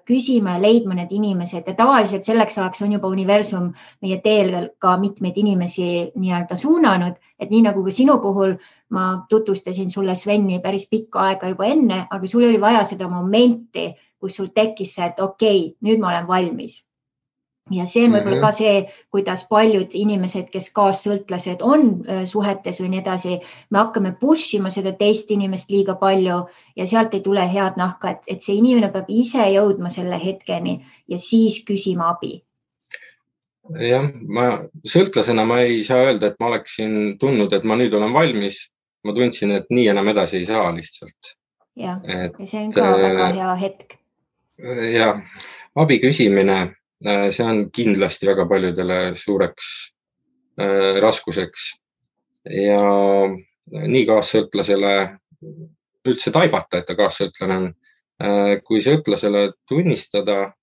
küsima ja leidma need inimesed. Ja tavaliselt selleks ajaks on juba universum meie teel ka mitmeid inimesi nii-öelda suunanud. Et nii nagu ka sinu puhul ma tutvustasin sulle Sveni päris pikka aega juba enne, aga sul oli vaja seda momenti, kus sul tekkis see, et okei, nüüd ma olen valmis. Ja see on võib-olla ka see, kuidas paljud inimesed, kes kaassõltlased on suhetes või nii edasi, me hakkame pushima seda teist inimest liiga palju ja sealt ei tule head nahka, et see inimene peab ise jõudma selle hetkeni ja siis küsima abi. Jah, sõltlasena ma ei saa öelda, et ma oleksin tundnud, et ma nüüd olen valmis. Ma tundsin, et nii enam edasi ei saa lihtsalt. Ja see on ka väga hea hetk. Ja abi küsimine see on kindlasti väga paljudele suureks raskuseks ja nii kaassõltlasele üldse taibata, et ta kaassõltlane on, kui sõltlasele tunnistada,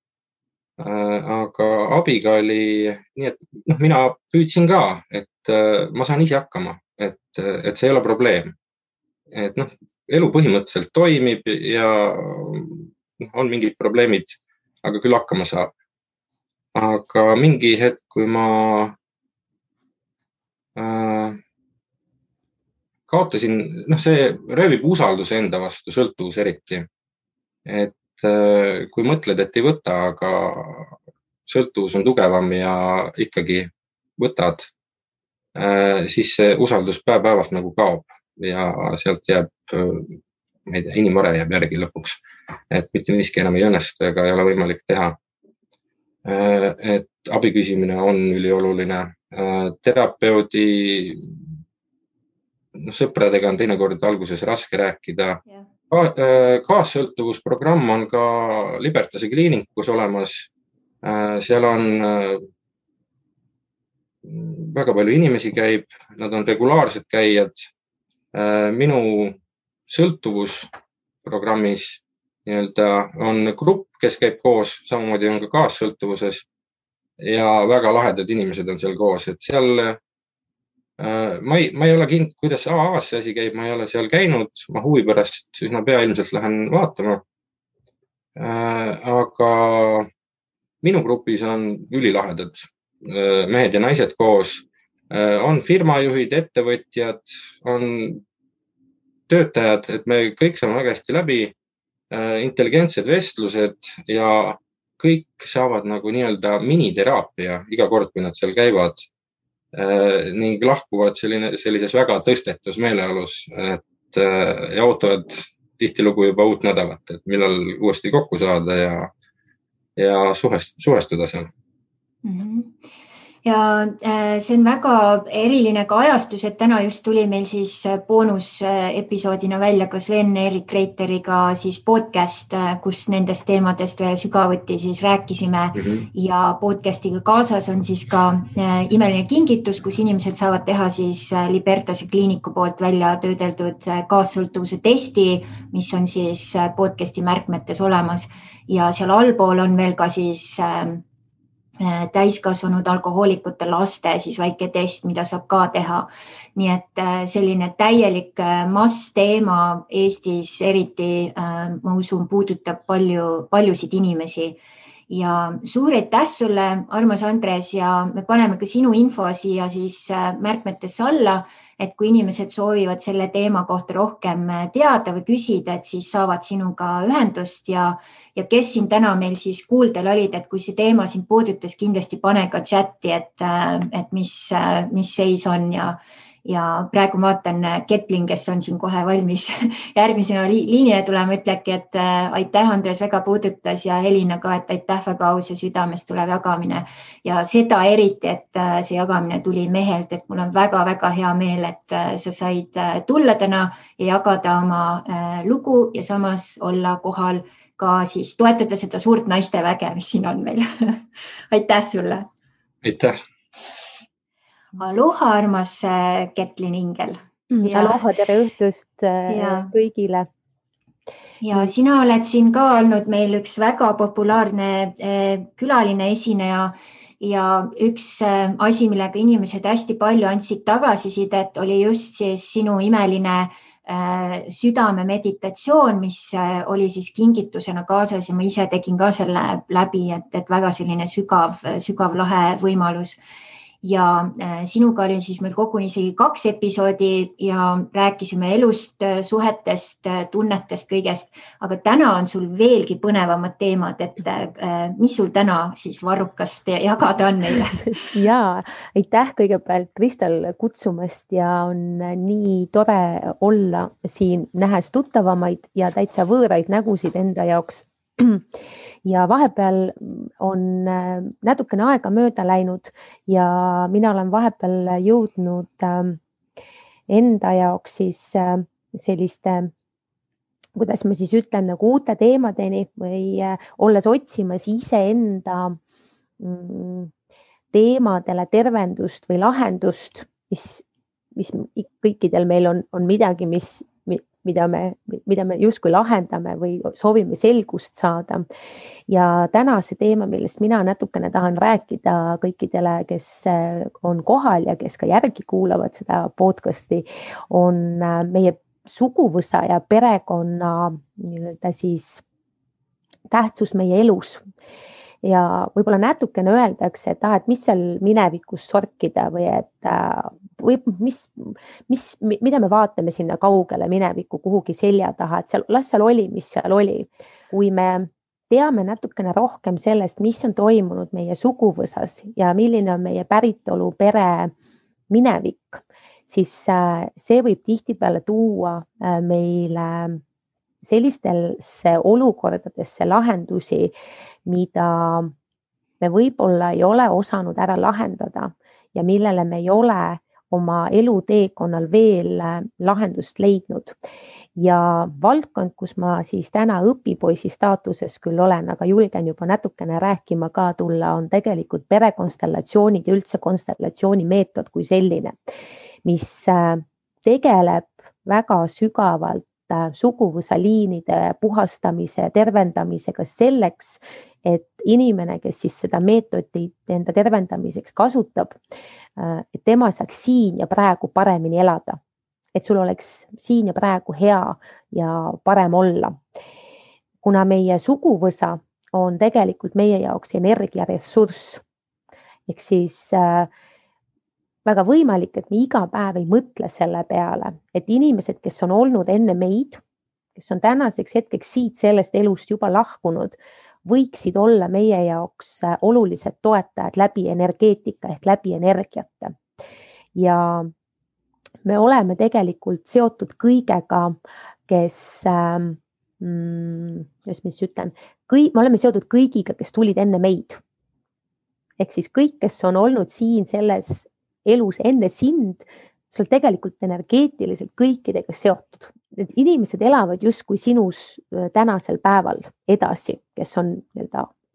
aga abiga oli nii, et mina püüdsin ka, et ma saan ise hakkama, et see ei ole probleem. Et elu põhimõtteliselt toimib ja on mingid probleemid, aga küll hakkama saab. Aga mingi hetk, kui ma kaotasin, see röövib usalduse enda vastu, sõltuvus eriti. Et kui mõtled, et ei võta, aga sõltuvus on tugevam ja ikkagi võtad, siis see usaldus päev-päevalt nagu kaob ja sealt jääb, ma ei tea, inimvare jääb järgi lõpuks, et mitte miski enam ei õnnestu ega ei ole võimalik teha. Et abi küsimine on ülioluline. Terapeudi sõpradega on teinekord alguses raske rääkida. Kaassõltuvusprogramm on ka Libertase kliinikus olemas. Seal on väga palju inimesi käib, nad on regulaarsed käijad. Minu sõltuvusprogrammis on grupp, kes käib koos, samamoodi on ka kaassõltuvuses ja väga lahedad inimesed on seal koos, et seal ma ei ole kindel, kuidas AA-s see asi käib, ma ei ole seal käinud, ma huvi pärast üsna pea ilmselt lähen vaatama. Aga minu grupis on ülilahedad mehed ja naised koos, on firmajuhid, ettevõtjad, on töötajad, et me kõik saame väga hästi läbi, intelligentsed vestlused ja kõik saavad nagu nii-öelda miniteraapia iga kord, kui nad seal käivad ning lahkuvad sellises väga tõstetus meeleolus, et ja ootavad tihtilugu juba uut nädalat, et millal uuesti kokku saada ja suhestuda seal. Ja see on väga eriline ka ajastus, et täna just tuli meil siis boonusepisoodina välja ka Sven-Erik Reiteriga siis podcast, kus nendest teemadest veel sügavuti siis rääkisime ja podcastiga kaasas on siis ka imeline kingitus, kus inimesed saavad teha siis Libertase kliiniku poolt välja töödeldud kaassõltuvuse testi, mis on siis podcasti märkmetes olemas ja seal allpool on veel ka siis täiskasvanud alkohoolikute laste siis väike test, mida saab ka teha. Nii et selline täielik massteema Eestis eriti, ma usun, puudutab paljusid inimesi. Ja suur aitäh sulle, armas Andres, ja me paneme ka sinu info siia siis märkmetesse alla, et kui inimesed soovivad selle teema kohta rohkem teada või küsida, et siis saavad sinuga ühendust ja kes siin täna meil siis kuuldel olid, et kui see teema sind puudutas, kindlasti pane ka chati, et mis seis on ja praegu vaatan Ketlin, kes on siin kohe valmis järgmisena liinile tulema, ütlebki, et aitäh, Andres, väga puudutas ja Helina ka, et aitäh, väga aus ja südamest tulev jagamine ja seda eriti, et see jagamine tuli mehelt, et mul on väga-väga hea meel, et sa said tulla täna ja jagada oma lugu ja samas olla kohal ka siis toetada seda suurt naisteväge, mis siin on meil. Aitäh sulle! Aitäh! Aloha, armas Ketlin Ingel! Aloha, tere õhtust kõigile! Ja sina oled siin ka olnud meil üks väga populaarne külaline esineja ja üks asi, millega inimesed hästi palju andsid tagasisidet, oli just siis sinu imeline südame meditatsioon, mis oli siis kingitusena kaasas ja ma ise tegin ka selle läbi, et väga selline sügav lahe võimalus. Ja sinuga oli siis meil koguni isegi 2 episoodi ja rääkisime elust, suhetest, tunnetest, kõigest, aga täna on sul veelgi põnevamad teemad, et mis sul täna siis varrukast jagada on meile? Jaa, aitäh kõigepealt Kristel kutsumast ja on nii tore olla siin nähes tuttavamaid ja täitsa võõraid nägusid enda jaoks. Ja vahepeal on natukene aega mööda läinud ja mina olen vahepeal jõudnud enda jaoks siis selliste, kuidas ma siis ütlen, nagu uute teemadeni või olles otsimas iseenda teemadele tervendust või lahendust, mis kõikidel meil on midagi, mida me justkui lahendame või soovime selgust saada. Ja täna see teema, millest mina natukene tahan rääkida kõikidele, kes on kohal ja kes ka järgi kuulavad seda podcasti, on meie suguvõsa ja perekonna siis tähtsus meie elus. Ja võib-olla natukene öeldakse, et mis seal minevikus sorkida või mida me vaatame sinna kaugele minevikku kuhugi selja taha, et las seal oli, mis seal oli. Kui me teame natukene rohkem sellest, mis on toimunud meie suguvõsas ja milline on meie päritolu pere minevik, siis see võib tihtipeale tuua meile sellistesse olukordadesse lahendusi, mida me võib-olla ei ole osanud ära lahendada ja millele me ei ole oma eluteekonnal veel lahendust leidnud. Ja valdkond, kus ma siis täna õpipoisi staatuses küll olen, aga julgen juba natukene rääkima ka tulla, on tegelikult perekonstellatsioonid ja üldse konstellatsiooni meetod kui selline, mis tegeleb väga sügavalt suguvõsaliinide puhastamise ja tervendamisega selleks, et inimene, kes siis seda meetodit enda tervendamiseks kasutab, et tema saaks siin ja praegu paremini elada. Et sul oleks siin ja praegu hea ja parem olla. Kuna meie suguvõsa on tegelikult meie jaoks energiaressurss, ehk siis väga võimalik, et me iga päev ei mõtle selle peale, et inimesed, kes on olnud enne meid, kes on tänaseks hetkeks siit sellest elust juba lahkunud, võiksid olla meie jaoks olulised toetajad läbi energeetika ehk läbi energiate. Ja me oleme tegelikult seotud kõigega, me oleme seotud kõigiga, kes tulid enne meid. Ehk siis kõik, kes on olnud siin selles elus enne sind, sul tegelikult energeetiliselt kõikidega seotud. Need inimesed elavad justkui sinus tänasel päeval edasi, kes on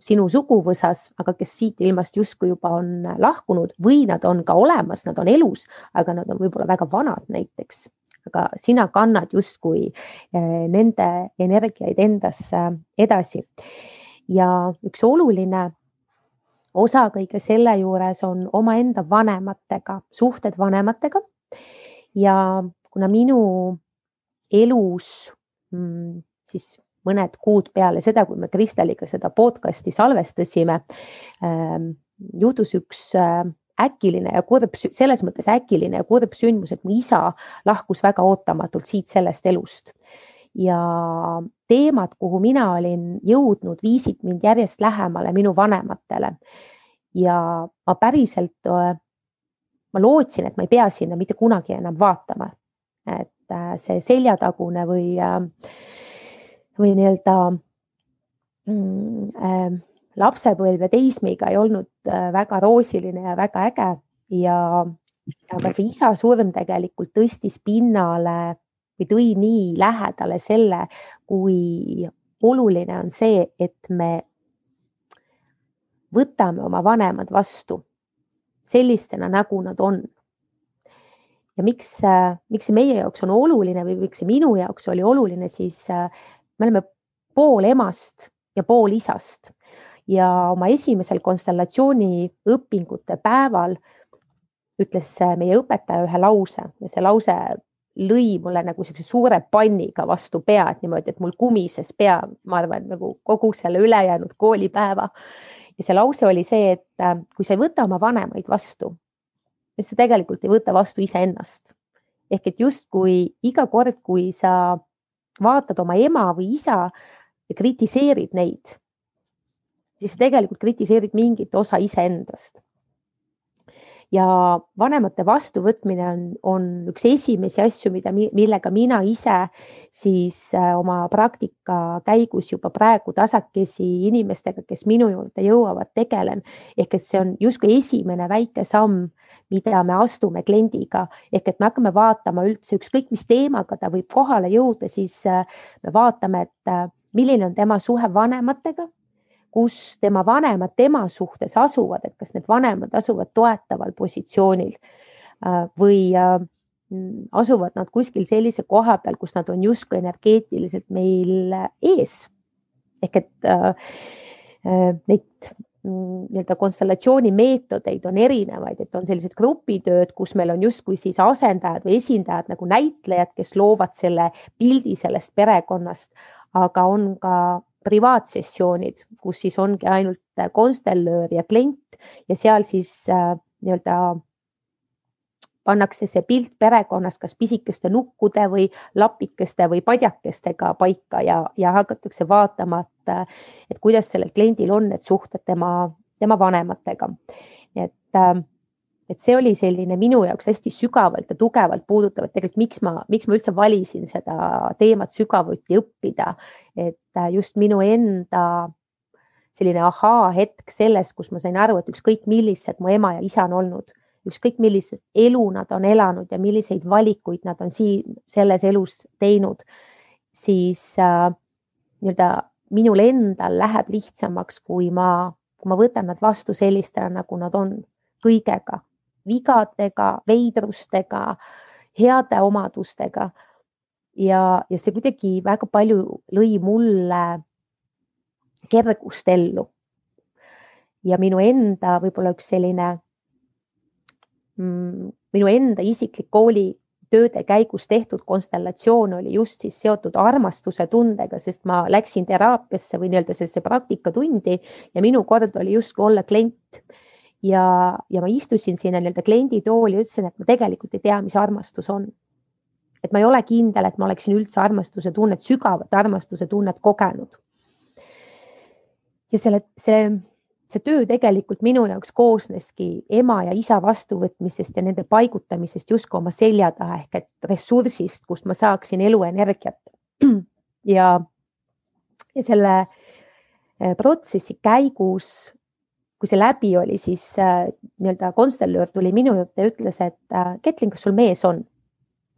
sinu suguvõsas, aga kes siit ilmast justkui juba on lahkunud või nad on ka olemas, nad on elus, aga nad on võib-olla väga vanad näiteks. Aga sina kannad justkui nende energiaid endasse edasi. Ja üks oluline osa kõige selle juures on omaenda vanematega, suhted vanematega. Ja kuna minu elus siis mõned kuud peale seda, kui me Kristeliga seda podcasti salvestasime, juhtus üks äkiline ja kurb, selles mõttes äkiline ja kurb sündmus, et mu isa lahkus väga ootamatult siit sellest elust. Ja teemad, kuhu mina olin jõudnud, viisid mind järjest lähemale minu vanematele. Ja ma päriselt, ma lootsin, et ma ei pea sinna mitte kunagi enam vaatama. Et see seljatagune või lapsepõlv ja teismiga ei olnud väga roosiline ja väga äge. Aga see isa surm tegelikult tõstis pinnale või tõi nii lähedale selle, kui oluline on see, et me võtame oma vanemad vastu sellistena, nagu nad on. Ja miks see meie jaoks on oluline või miks see minu jaoks oli oluline, siis me oleme pool emast ja pool isast. Ja oma esimesel konstellatsiooni õpingute päeval ütles meie õpetaja ühe lause ja see lause lõi mulle nagu suure panniga vastu pead niimoodi, et mul kumises pea, ma arvan, nagu kogu selle ülejäänud koolipäeva. Ja see lause oli see, et kui sa ei võta oma vanemaid vastu, siis sa tegelikult ei võta vastu iseennast. Ehk et just kui iga kord, kui sa vaatad oma ema või isa ja kritiseerid neid, siis sa tegelikult kritiseerid mingit osa iseendast. Ja vanemate vastuvõtmine on üks esimesi asju, millega mina ise siis oma praktika käigus juba praegu tasakesi inimestega, kes minu juurde jõuavad, tegelen. Ehk et see on justkui esimene väike samm, mida me astume kliendiga. Ehk et me hakkame vaatama üldse ükskõik mis teemaga ta võib kohale jõuda, siis me vaatame, et milline on tema suhe vanematega, kus tema vanemad tema suhtes asuvad, et kas need vanemad asuvad toetaval positsioonil või asuvad nad kuskil sellise koha peal, kus nad on justkui energeetiliselt meil ees. Ehk et neid nii-öelda konstellatsiooni meetodeid on erinevaid, et on sellised grupitööd, kus meil on justkui siis asendajad või esindajad nagu näitlejad, kes loovad selle pildi sellest perekonnast, aga on ka privaatsessioonid, kus siis ongi ainult konstellöör ja klient ja seal siis nii-öelda pannakse see pilt perekonnast kas pisikeste nukkude või lapikeste või padjakestega paika ja hakatakse vaatama, et kuidas sellel kliendil on need suhted tema vanematega. Et see oli selline minu jaoks hästi sügavalt ja tugevalt puudutav, et tegelikult miks ma üldse valisin seda teemat sügavuti õppida, et just minu enda selline ahaa hetk selles, kus ma sain aru, et ükskõik millised mu ema ja isa on olnud, ükskõik millised elu nad on elanud ja milliseid valikuid nad on selles elus teinud, siis nii-öelda minul endal läheb lihtsamaks, kui ma võtan nad vastu sellistena, nagu nad on, kõigega, vigadega, veidrustega, heade omadustega. Ja see kuidagi väga palju lõi mulle kergust ellu. Ja minu enda võib-olla üks selline minu enda isiklik koolitööde käigus tehtud konstellatsioon oli just siis seotud armastuse tundega, sest ma läksin teraapiasse või nii-öelda sellesse praktikatundi ja minu kord oli justkui olla klient. Ja ma istusin sinna nii-öelda klienditooli ja ütlesin, et ma tegelikult ei tea, mis armastus on. Et ma ei ole kindel, et ma oleksin üldse armastuse tunnet, sügavat armastuse tunnet kogenud. Ja see töö tegelikult minu jaoks koosneski ema ja isa vastuvõtmisest ja nende paigutamisest justkui oma selja taha ehk et ressursist, kust ma saaksin eluenergiat. Ja selle protsessi käigus, kui see läbi oli, siis nii-öelda konstellöör tuli minu juurde ja ütles, et Ketlin, kas sul mees on?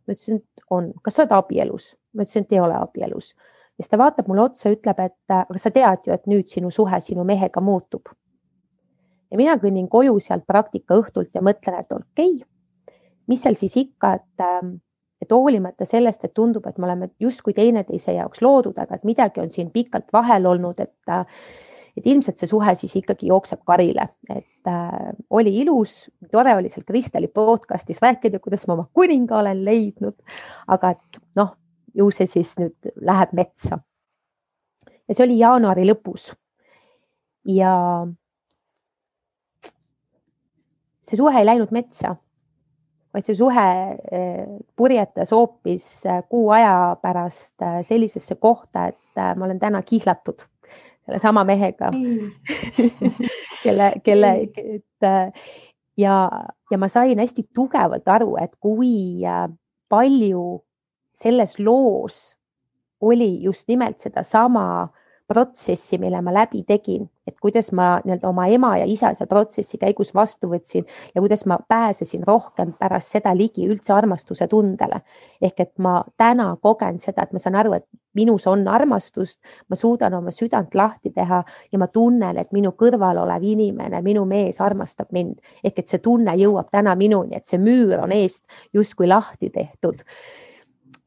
Ma ütlesin, et on. Kas sa oled abielus? Ma ütlesin, et ei ole abielus. Ja siis ta vaatab mulle otsa ja ütleb, et aga sa tead ju, et nüüd sinu suhe sinu mehega muutub. Ja mina kõnnin koju sealt praktika õhtult ja mõtlen, et okei, mis seal siis ikka, et hoolimata sellest, et tundub, et me oleme justkui teineteise jaoks loodud, aga et midagi on siin pikalt vahel olnud, et ilmselt see suhe siis ikkagi jookseb karile. Et oli ilus, tore oli seal Kristeli podcastis rääkida, kuidas ma oma kuninga olen leidnud, aga et ju see siis nüüd läheb metsa. Ja see oli jaanuari lõpus. Ja see suhe ei läinud metsa, vaid see suhe purjetas hoopis kuu aja pärast sellisesse kohta, et ma olen täna kihlatud selle sama mehega, ja ma sain hästi tugevalt aru, et kui palju selles loos oli just nimelt seda sama protsessi, mille ma läbi tegin, et kuidas ma nii-öelda oma ema ja isa seal protsessi käigus vastu võtsin ja kuidas ma pääsesin rohkem pärast seda ligi üldse armastuse tundele. Ehk et ma täna kogen seda, et ma saan aru, et minus on armastust, ma suudan oma südant lahti teha ja ma tunnen, et minu kõrval olev inimene, minu mees armastab mind. Ehk et see tunne jõuab täna minuni, et see müür on eest justkui lahti tehtud.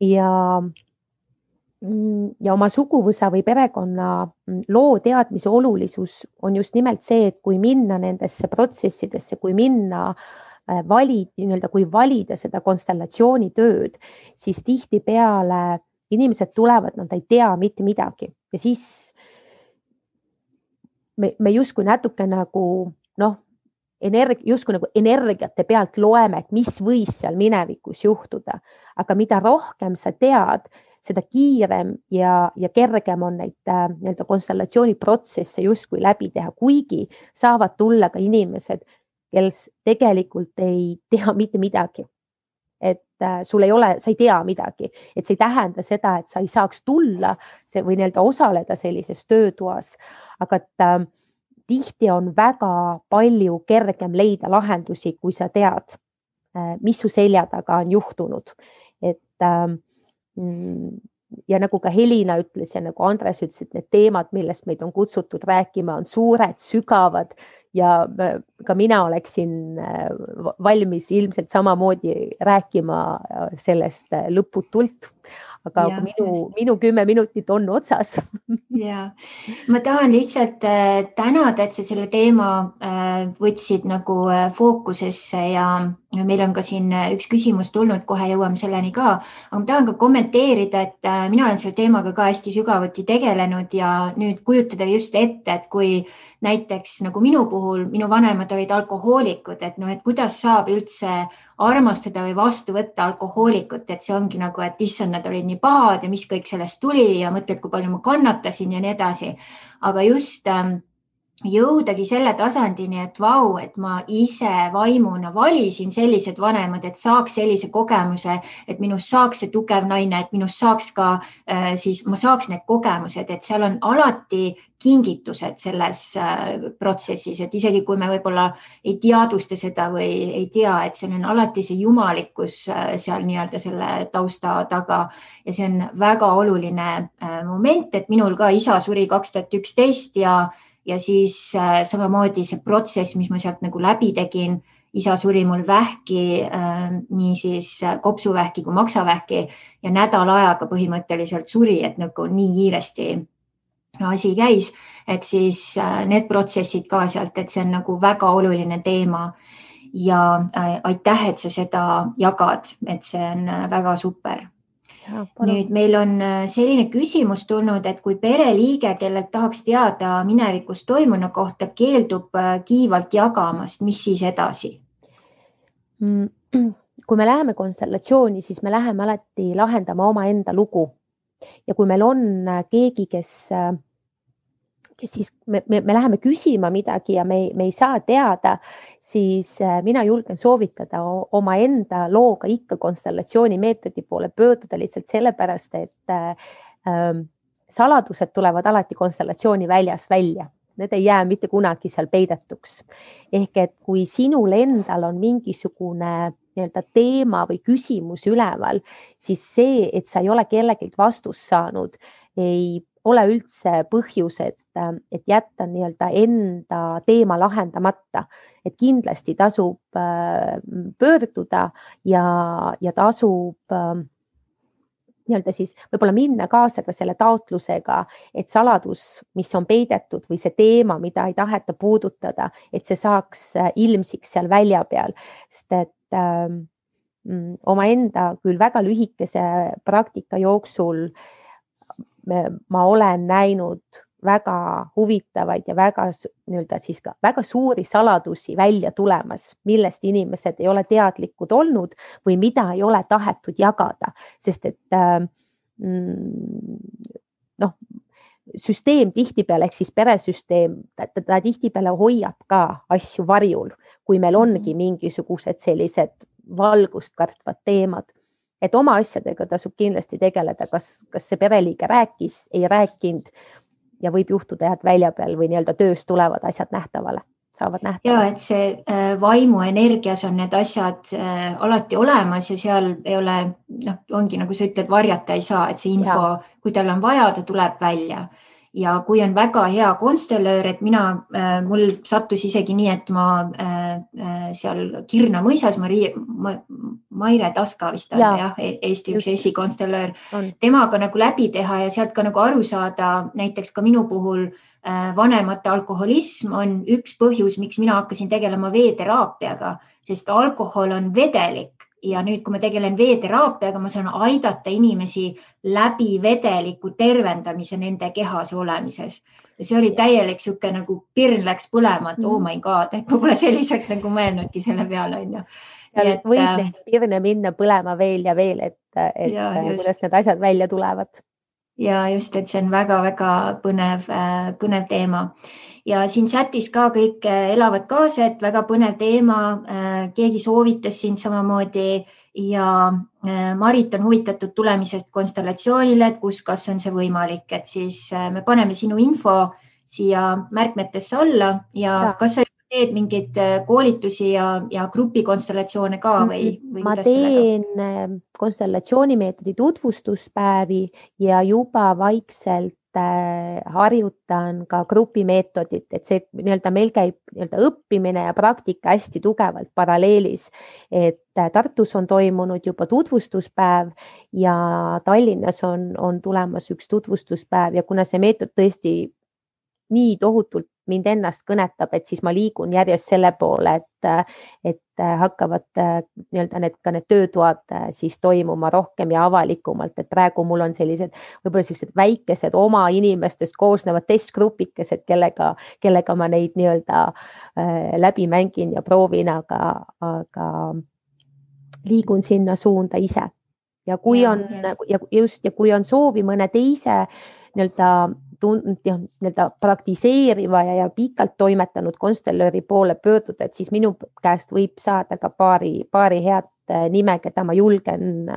Ja oma suguvõsa või perekonna loo teadmise olulisus on just nimelt see, et kui minna nendesse protsessidesse, kui minna kui valida seda konstellatsiooni tööd, siis tihtipeale inimesed tulevad, nad ei tea mitte midagi ja siis me justkui natuke nagu justkui nagu energiate pealt loeme, et mis võis seal minevikus juhtuda, aga mida rohkem sa tead, seda kiirem ja kergem on neid nii-öelda konstellatsiooni protsesse justkui läbi teha, kuigi saavad tulla ka inimesed, kes tegelikult ei tea mitte midagi. Et sul ei ole, sa ei tea midagi, et see ei tähenda seda, et sa ei saaks tulla või nii-öelda osaleda sellises töötoas, aga tihti on väga palju kergem leida lahendusi, kui sa tead, mis su selja taga on juhtunud. Et ja nagu ka Helina ütles ja nagu Andres ütles, et need teemad, millest meid on kutsutud rääkima, on suured, sügavad ja ka mina oleksin valmis ilmselt samamoodi rääkima sellest lõputult. Aga minu 10 minutit on otsas. Ja, ma tahan lihtsalt tänada, et sa selle teema võtsid nagu fookusesse ja meil on ka siin üks küsimus tulnud, kohe jõuame selleni ka. Aga ma tahan ka kommenteerida, et mina olen selle teemaga ka hästi sügavuti tegelenud ja nüüd kujutada just ette, et kui näiteks nagu minu puhul, minu vanemad olid alkohoolikud, et et kuidas saab üldse armastada või vastu võtta alkohoolikut, et see ongi nagu, et issand, nad olid nii pahad ja mis kõik sellest tuli ja mõtled, kui palju ma kannatasin ja nii edasi. Aga just jõudagi selle tasandini, et vau, et ma ise vaimuna valisin sellised vanemad, et saaks sellise kogemuse, et minust saaks see tugev naine, et minust saaks ka, siis ma saaks need kogemused, et seal on alati kingitused selles protsessis, et isegi kui me võib-olla ei teadvusta seda või ei tea, et seal on alati see jumalikkus seal nii-öelda selle tausta taga ja see on väga oluline moment, et minul ka isa suri 2011 ja siis samamoodi see protsess, mis ma sealt nagu läbi tegin, isa suri mul vähki, nii siis kopsuvähki kui maksavähki ja nädala ajaga põhimõtteliselt suri, et nagu nii kiiresti asi käis, et siis need protsessid ka sealt, et see on nagu väga oluline teema ja aitäh, et sa seda jagad, et see on väga super. Nüüd meil on selline küsimus tulnud, et kui pereliige, kellelt tahaks teada minevikus toimunu kohta, keeldub kiivalt jagamast, mis siis edasi? Kui me läheme konstellatsiooni, siis me läheme alati lahendama oma enda lugu. Ja kui meil on keegi, kes siis me läheme küsima midagi ja me ei saa teada, siis mina julgen soovitada oma enda looga ikka konstellatsiooni meetodi poole pöörduda lihtsalt sellepärast, et saladused tulevad alati konstellatsiooni väljas välja. Need ei jää mitte kunagi seal peidetuks. Ehk et kui sinul endal on mingisugune teema või küsimus üleval, siis see, et sa ei ole kellegilt vastust saanud, ei ole üldse põhjus, et jätta enda teema lahendamata. Et kindlasti tasub pöörduda ja tasub siis võib-olla minna kaasa ka selle taotlusega, et saladus, mis on peidetud või see teema, mida ei taheta puudutada, et see saaks ilmsiks seal välja peal. Sest et omaenda küll väga lühikese praktika jooksul ma olen näinud väga huvitavaid ja väga suuri saladusi välja tulemas, millest inimesed ei ole teadlikud olnud või mida ei ole tahetud jagada, sest et süsteem tihtipeale ehk siis peresüsteem, ta tihtipeale hoiab ka asju varjul, kui meil ongi mingisugused sellised valgust kartvad teemad. Et oma asjadega tasub kindlasti tegeleda, kas see pereliige rääkis, ei rääkinud ja võib juhtuda, et välja peal või töös tulevad asjad nähtavale, saavad nähtavale. Ja, et see vaimu energias on need asjad alati olemas ja seal ei ole, ongi nagu sa ütled, varjata ei saa, et see info, kui tal on vaja, ta tuleb välja. Ja kui on väga hea konstellöör, et mul sattus isegi nii, et ma seal Kirna mõisas, Maire Taska vist on, Eesti üks esikonstellöör, temaga nagu läbi teha ja sealt ka nagu aru saada, näiteks ka minu puhul vanemate alkoholism on üks põhjus, miks mina hakkasin tegelema veeteraapiaga, sest alkohol on vedelik. Ja nüüd, kui ma tegelen veeteraapiaga, ma saan aidata inimesi läbi vedeliku tervendamise nende kehas olemises. Ja see oli täielik siuke nagu pirn läks põlema, et oh my god, et ma pole selliselt nagu mõelnudki selle peale. Seal võib neid pirne minna põlema veel ja veel, et kuidas need asjad välja tulevad. Ja just, et see on väga-väga põnev teema. Ja siin chatis ka kõik elavad kaasa, et väga põnev teema, keegi soovitas siin samamoodi ja Marit on huvitatud tulemisest konstellatsioonile, et kas on see võimalik, et siis me paneme sinu info siia märkmetesse alla ja kas sa teed mingeid koolitusi ja grupikonstellatsioone ka või ma teen konstellatsioonimeetodi tutvustuspäevi ja juba vaikselt harjutan ka grupimeetodit, et see nii-öelda meil käib nii-öelda õppimine ja praktika hästi tugevalt paralleelis, et Tartus on toimunud juba tutvustuspäev ja Tallinnas on tulemas üks tutvustuspäev ja kuna see meetod tõesti nii tohutult mind ennast kõnetab, et siis ma liigun järjest selle poole, et hakkavad nii-öelda need töötoad siis toimuma rohkem ja avalikumalt, et praegu mul on võib-olla sellised väikesed oma inimestest koosnevad testgrupikesed, kellega ma neid nii-öelda läbi mängin ja proovin, aga liigun sinna suunda ise. Ja kui on soovi mõne teise nii-öelda praktiseeriva ja pikalt toimetanud konstellööri poole pöörduda, et siis minu käest võib saada ka paari head nime, keda ma julgen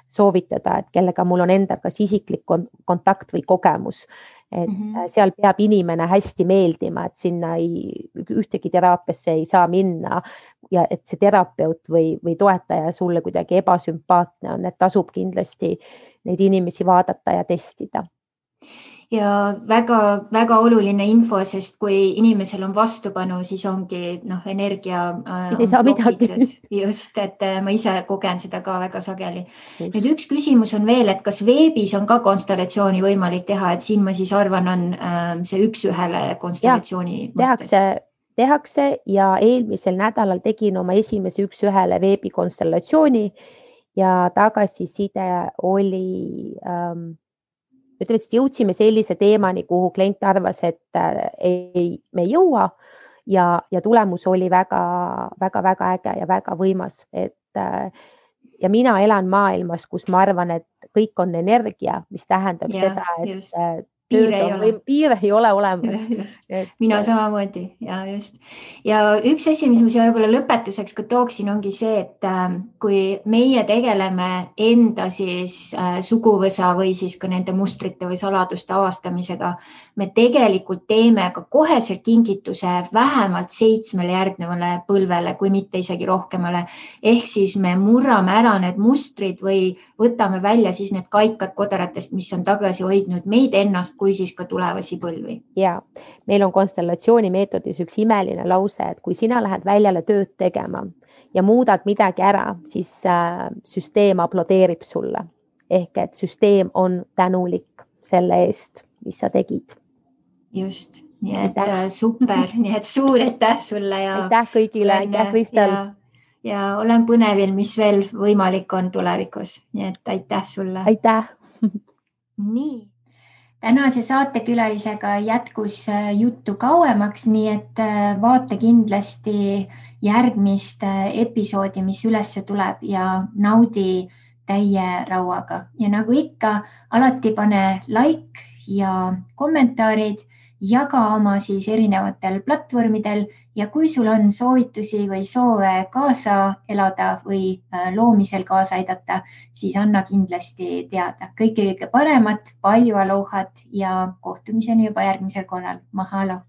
soovitada, et kellega mul on enda kas isiklik kontakt või kogemus. Et seal peab inimene hästi meeldima, et sinna ühtegi teraapiasse ei saa minna ja et see terapeut või toetaja sulle kuidagi ebasümpaatne on, et tasub kindlasti neid inimesi vaadata ja testida. Ja väga oluline info, sest kui inimesel on vastupanu, siis ongi energia. Siis ei saa midagi. Just, et ma ise kogen seda ka väga sageli. Nüüd üks küsimus on veel, et kas veebis on ka konstellatsiooni võimalik teha, et siin ma siis arvan, on see üks-ühele konstellatsiooni mõttes. Tehakse ja eelmisel nädalal tegin oma esimese üks-ühele veebikonstellatsiooni ja tagasiside oli... Ütleme, siis jõudsime sellise teemani, kuhu klient arvas, et me ei jõua ja tulemus oli väga äge ja väga võimas. Ja mina elan maailmas, kus ma arvan, et kõik on energia, mis tähendab seda, et piir ei ole olemas. Mina samamoodi ja just. Ja üks asi, mis ma siia võib-olla lõpetuseks ka tooksin, ongi see, et kui meie tegeleme enda siis suguvõsa või siis ka nende mustrite või saladuste avastamisega, me tegelikult teeme ka koheselt kingituse vähemalt 7 järgnevale põlvele, kui mitte isegi rohkemale. Ehk siis me murrame ära need mustrid või võtame välja siis need kaikad kodaratest, mis on tagasi hoidnud meid ennast kui siis ka tulevasi põlvi. Ja meil on konstellatsiooni meetodis üks imeline lause, et kui sina lähed väljale tööd tegema ja muudad midagi ära, siis süsteem aplodeerib sulle. Ehk et süsteem on tänulik selle eest, mis sa tegid. Just, nii et super, nii et suur aitäh sulle. Ja aitäh kõigile, aitäh Kristel. Ja olen põnevil, mis veel võimalik on tulevikus. Nii et aitäh sulle. Aitäh. Nii. Tänase saatekülalisega jätkus juttu kauemaks, nii et vaata kindlasti järgmist episoodi, mis ülesse tuleb ja naudi täie rauaga. Ja nagu ikka, alati pane like ja kommentaarid, jaga oma siis erinevatel platvormidel ja kui sul on soovitusi või soove kaasa elada või loomisel kaasa aidata, siis anna kindlasti teada. Kõige paremat, palju alohat ja kohtumiseni juba järgmisel korral. Mahalo!